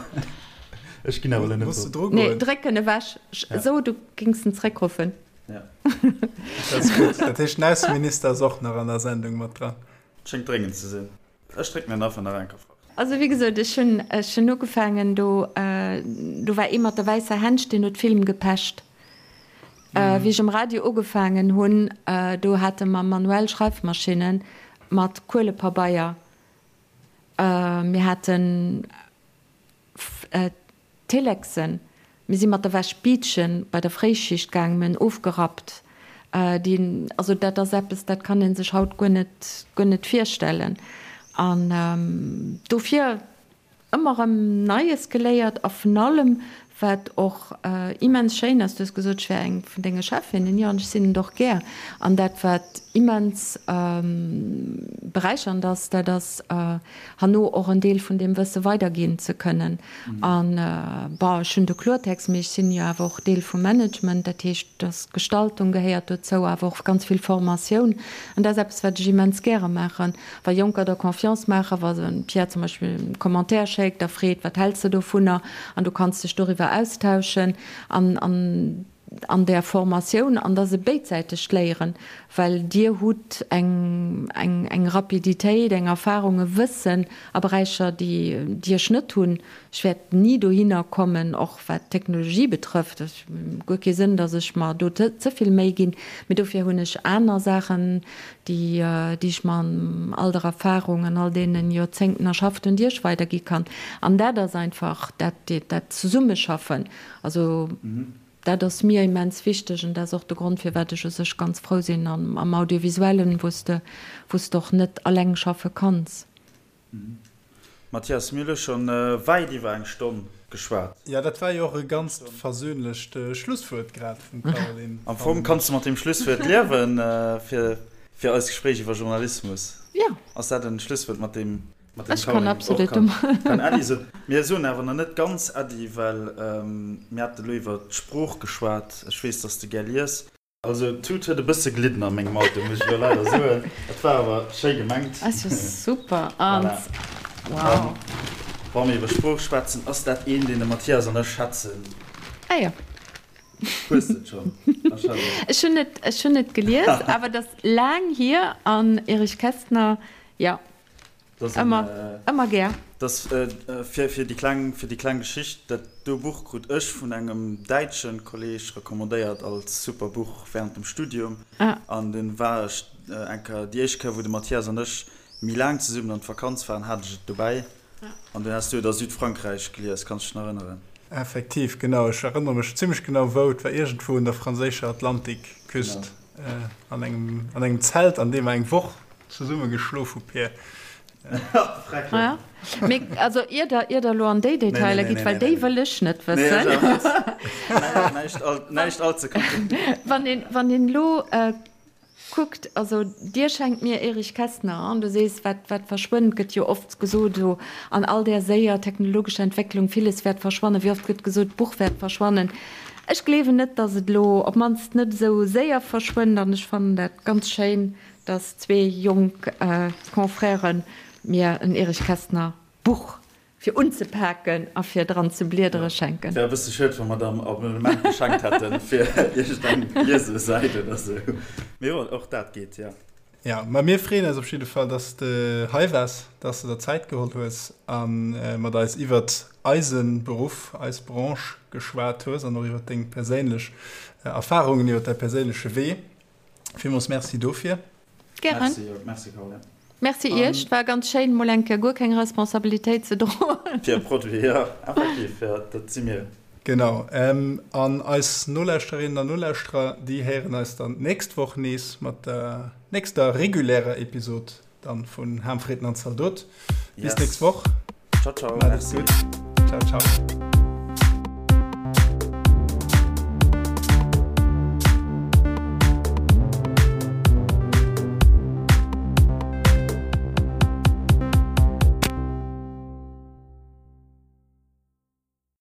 ech ginn awer elo net drop. Nee, dréck en ewech. So, du gings en zréckruffen. Ja. Dat ass gutt. Dat heescht, den Ausseminister ass och nach an der Sendung mat dran. Schéngt dréngend ze sinn. Ech drécken en einfach nach eng Kéier fort. Also wéi gesot, ech hunn, ech hunn ugefaangen, do, do war ee mat der wäisser Hänsch, deen huet Film gepecht. Wéi ech um Radio ugefaangen hunn, do hate mer manuell Schreifmaschinne mat Kuelepabeier. Mir haten Telexen. Mir si mat der Wäsch Biitchen bei der Fréischicht gaangen, mir hunn ofgerappt. Déi, also dat ass eppes, dat kann ee sech haut guer net, guer net virstellen. An dofir ëmmer erëm Neies geléiert a vun allem, wat och immens schéin ass, du hues gesot, ech wär eng vun denge Chefinnen, jo, an ech sinn et och gär. An dat, wat immens beräichernd ass, dat ass, herno och en Deel vun deem Wësse weiderginn ze kënnen. An, bon, ech hunn de Kloertext, mee ech sinn jo awer och Deel vum Management, dat heescht, dass Gestaltung gehéiert dozou, awer och ganz vill Formatioun. An dat ass eppes, wat ech immens gäre maachen, wa Jonker der Confiance maachen, wa se Pierre zum Beispill e Commentaire schéckt a freet, wat häls de dovunner, an du kanns dech doriwwer austauschen an, an. an där Formatioun, an dat ass e béidsäitegt Léieren, well Dir hutt eng, eng, eng Rapiditéit, eng Erfahrung, e Wëssen a Beräicher, déi, déi ech net hunn. Ech wäert ni dohinner kommen, och wat d'Technologie betrëfft. Et huet guer kee Sënn, datt ech mer do ze vill Méi ginn. Mee dofir hunn ech aner Saachen, déi, déi ech mer an all der Erfahrung an all deene Joerzéngten erschafft hunn, déi ech weidergi kann. An dat ass einfach dat, dat Zesummeschaffen. Also dat ass mir immens wichteg an dat ass och de Grond, firwat ech u sech ganz frou sinn am Audiovisuellen, wou s de, wou s de och net alleng schaffe kanns. Mathias, mir hu scho wäit iwwer eng Stonn geschwat. Jo, dat war jo och e ganzt versöhnlecht Schlusswuert grad vum Caroline. Am Fong kanns de mat deem Schlusswuert liewen fir eist Gespréich iwwer Journalismus. Jo. Ass dat en Schlusswuert, mat deem Ech kann absolut domat. Kann Äddi soen. Mir soen awer nach net ganz Äddi, well mir hate lo iwwer d'Sprooch geschwat. Ech weess, dass de gär lies. Also d'Tut huet e bësse glidden a mengem Auto, muss ech elo leider soen. Et war awer schéi gemengt. Ass jo super. An wow. Wa mir iwwer Sprooch schwätzen, ass dat een, deen de Mathias an ech schätzen. Ah jo. Hues de et schonn? Ech hunn et, ech hunn et gelies, awer et ass laang hier an Erich Kästner, jo. Ëmmer, ëmmer gär. Dass, fir, fir déi kleng, fir déi kleng Geschicht, dat do Buch krut ech vun engem däitsche Kolleg recommandéiert als super Buch während dem Studium. An dunn war ech eng Kéier, déi éischt Kéier wou de Mathias an ech méi laang zesummen an d'Vakanz waren, hat ech et dobäi. An dunn has du et a Südfrankräich gelies, kanns dech nach erënneren? Effektiv, genau. Ech erënnere mech zimmlech genau wou. Et war iergendwou un der franséischer Atlantikküst, an engem, an engem Zelt, an deem mer eng Woch Zesumme geschlof hu Peer. Ja, mee also ier der, ier der elo an déi Detailer gitt, well déi wëll ech net wëssen. Näischt all ze komplizéiert. Wann een, wann een elo kuckt, also Dir schenkt mir Erich Kästner an du sees, wat, wat verschwënnt, gëtt jo oft gesot elo an all där séier technologescher Entwécklung, villes wäert verschwannen, wéi oft gëtt gesot, d'Buch wäert verschwannen. Ech gleewen net, datt et elo, op d'mannst net esou séier verschwënnt an ech fannen dat ganz schéin, dass zwee jonk Confrèren mir en Erich Kästner Buch fir unzepaken a fir dran ze bliedere schenken. Wär e bësse schued, wa mer der en Abonnement geschenkt hätten fir iergendeng Liesesäit oder sou. Mee jo, och dat geet, jo. Jo, ma mir freeën eis op jidde Fall, dass de hei waars, dass de der Zäit geholl hues a mat eis iwwert eise Beruff, eis Branche geschwat hues an och iwwert deng perséinlech Erfarungen, iwwert däi perséinleche Wee. Villmools Merci dofir. Gären. Merci, merci Caroline. Merci Iech, et war ganz schéin mol eng Kéier guer keng Responsabilitéit ze droen. Fir e Produit, jo, effektiv, jo, dat si mir. Genau, an eis Nolauschterinnen an Nolauschterer, déi héieren eis dann d'nächst Woch nees mat der nächster regulärer Episod dann vun Ham, Fritten an Zaldot. Bis Yes. nächst Woch. Ciao, ciao, Maat et merci. gutt. Ciao, ciao.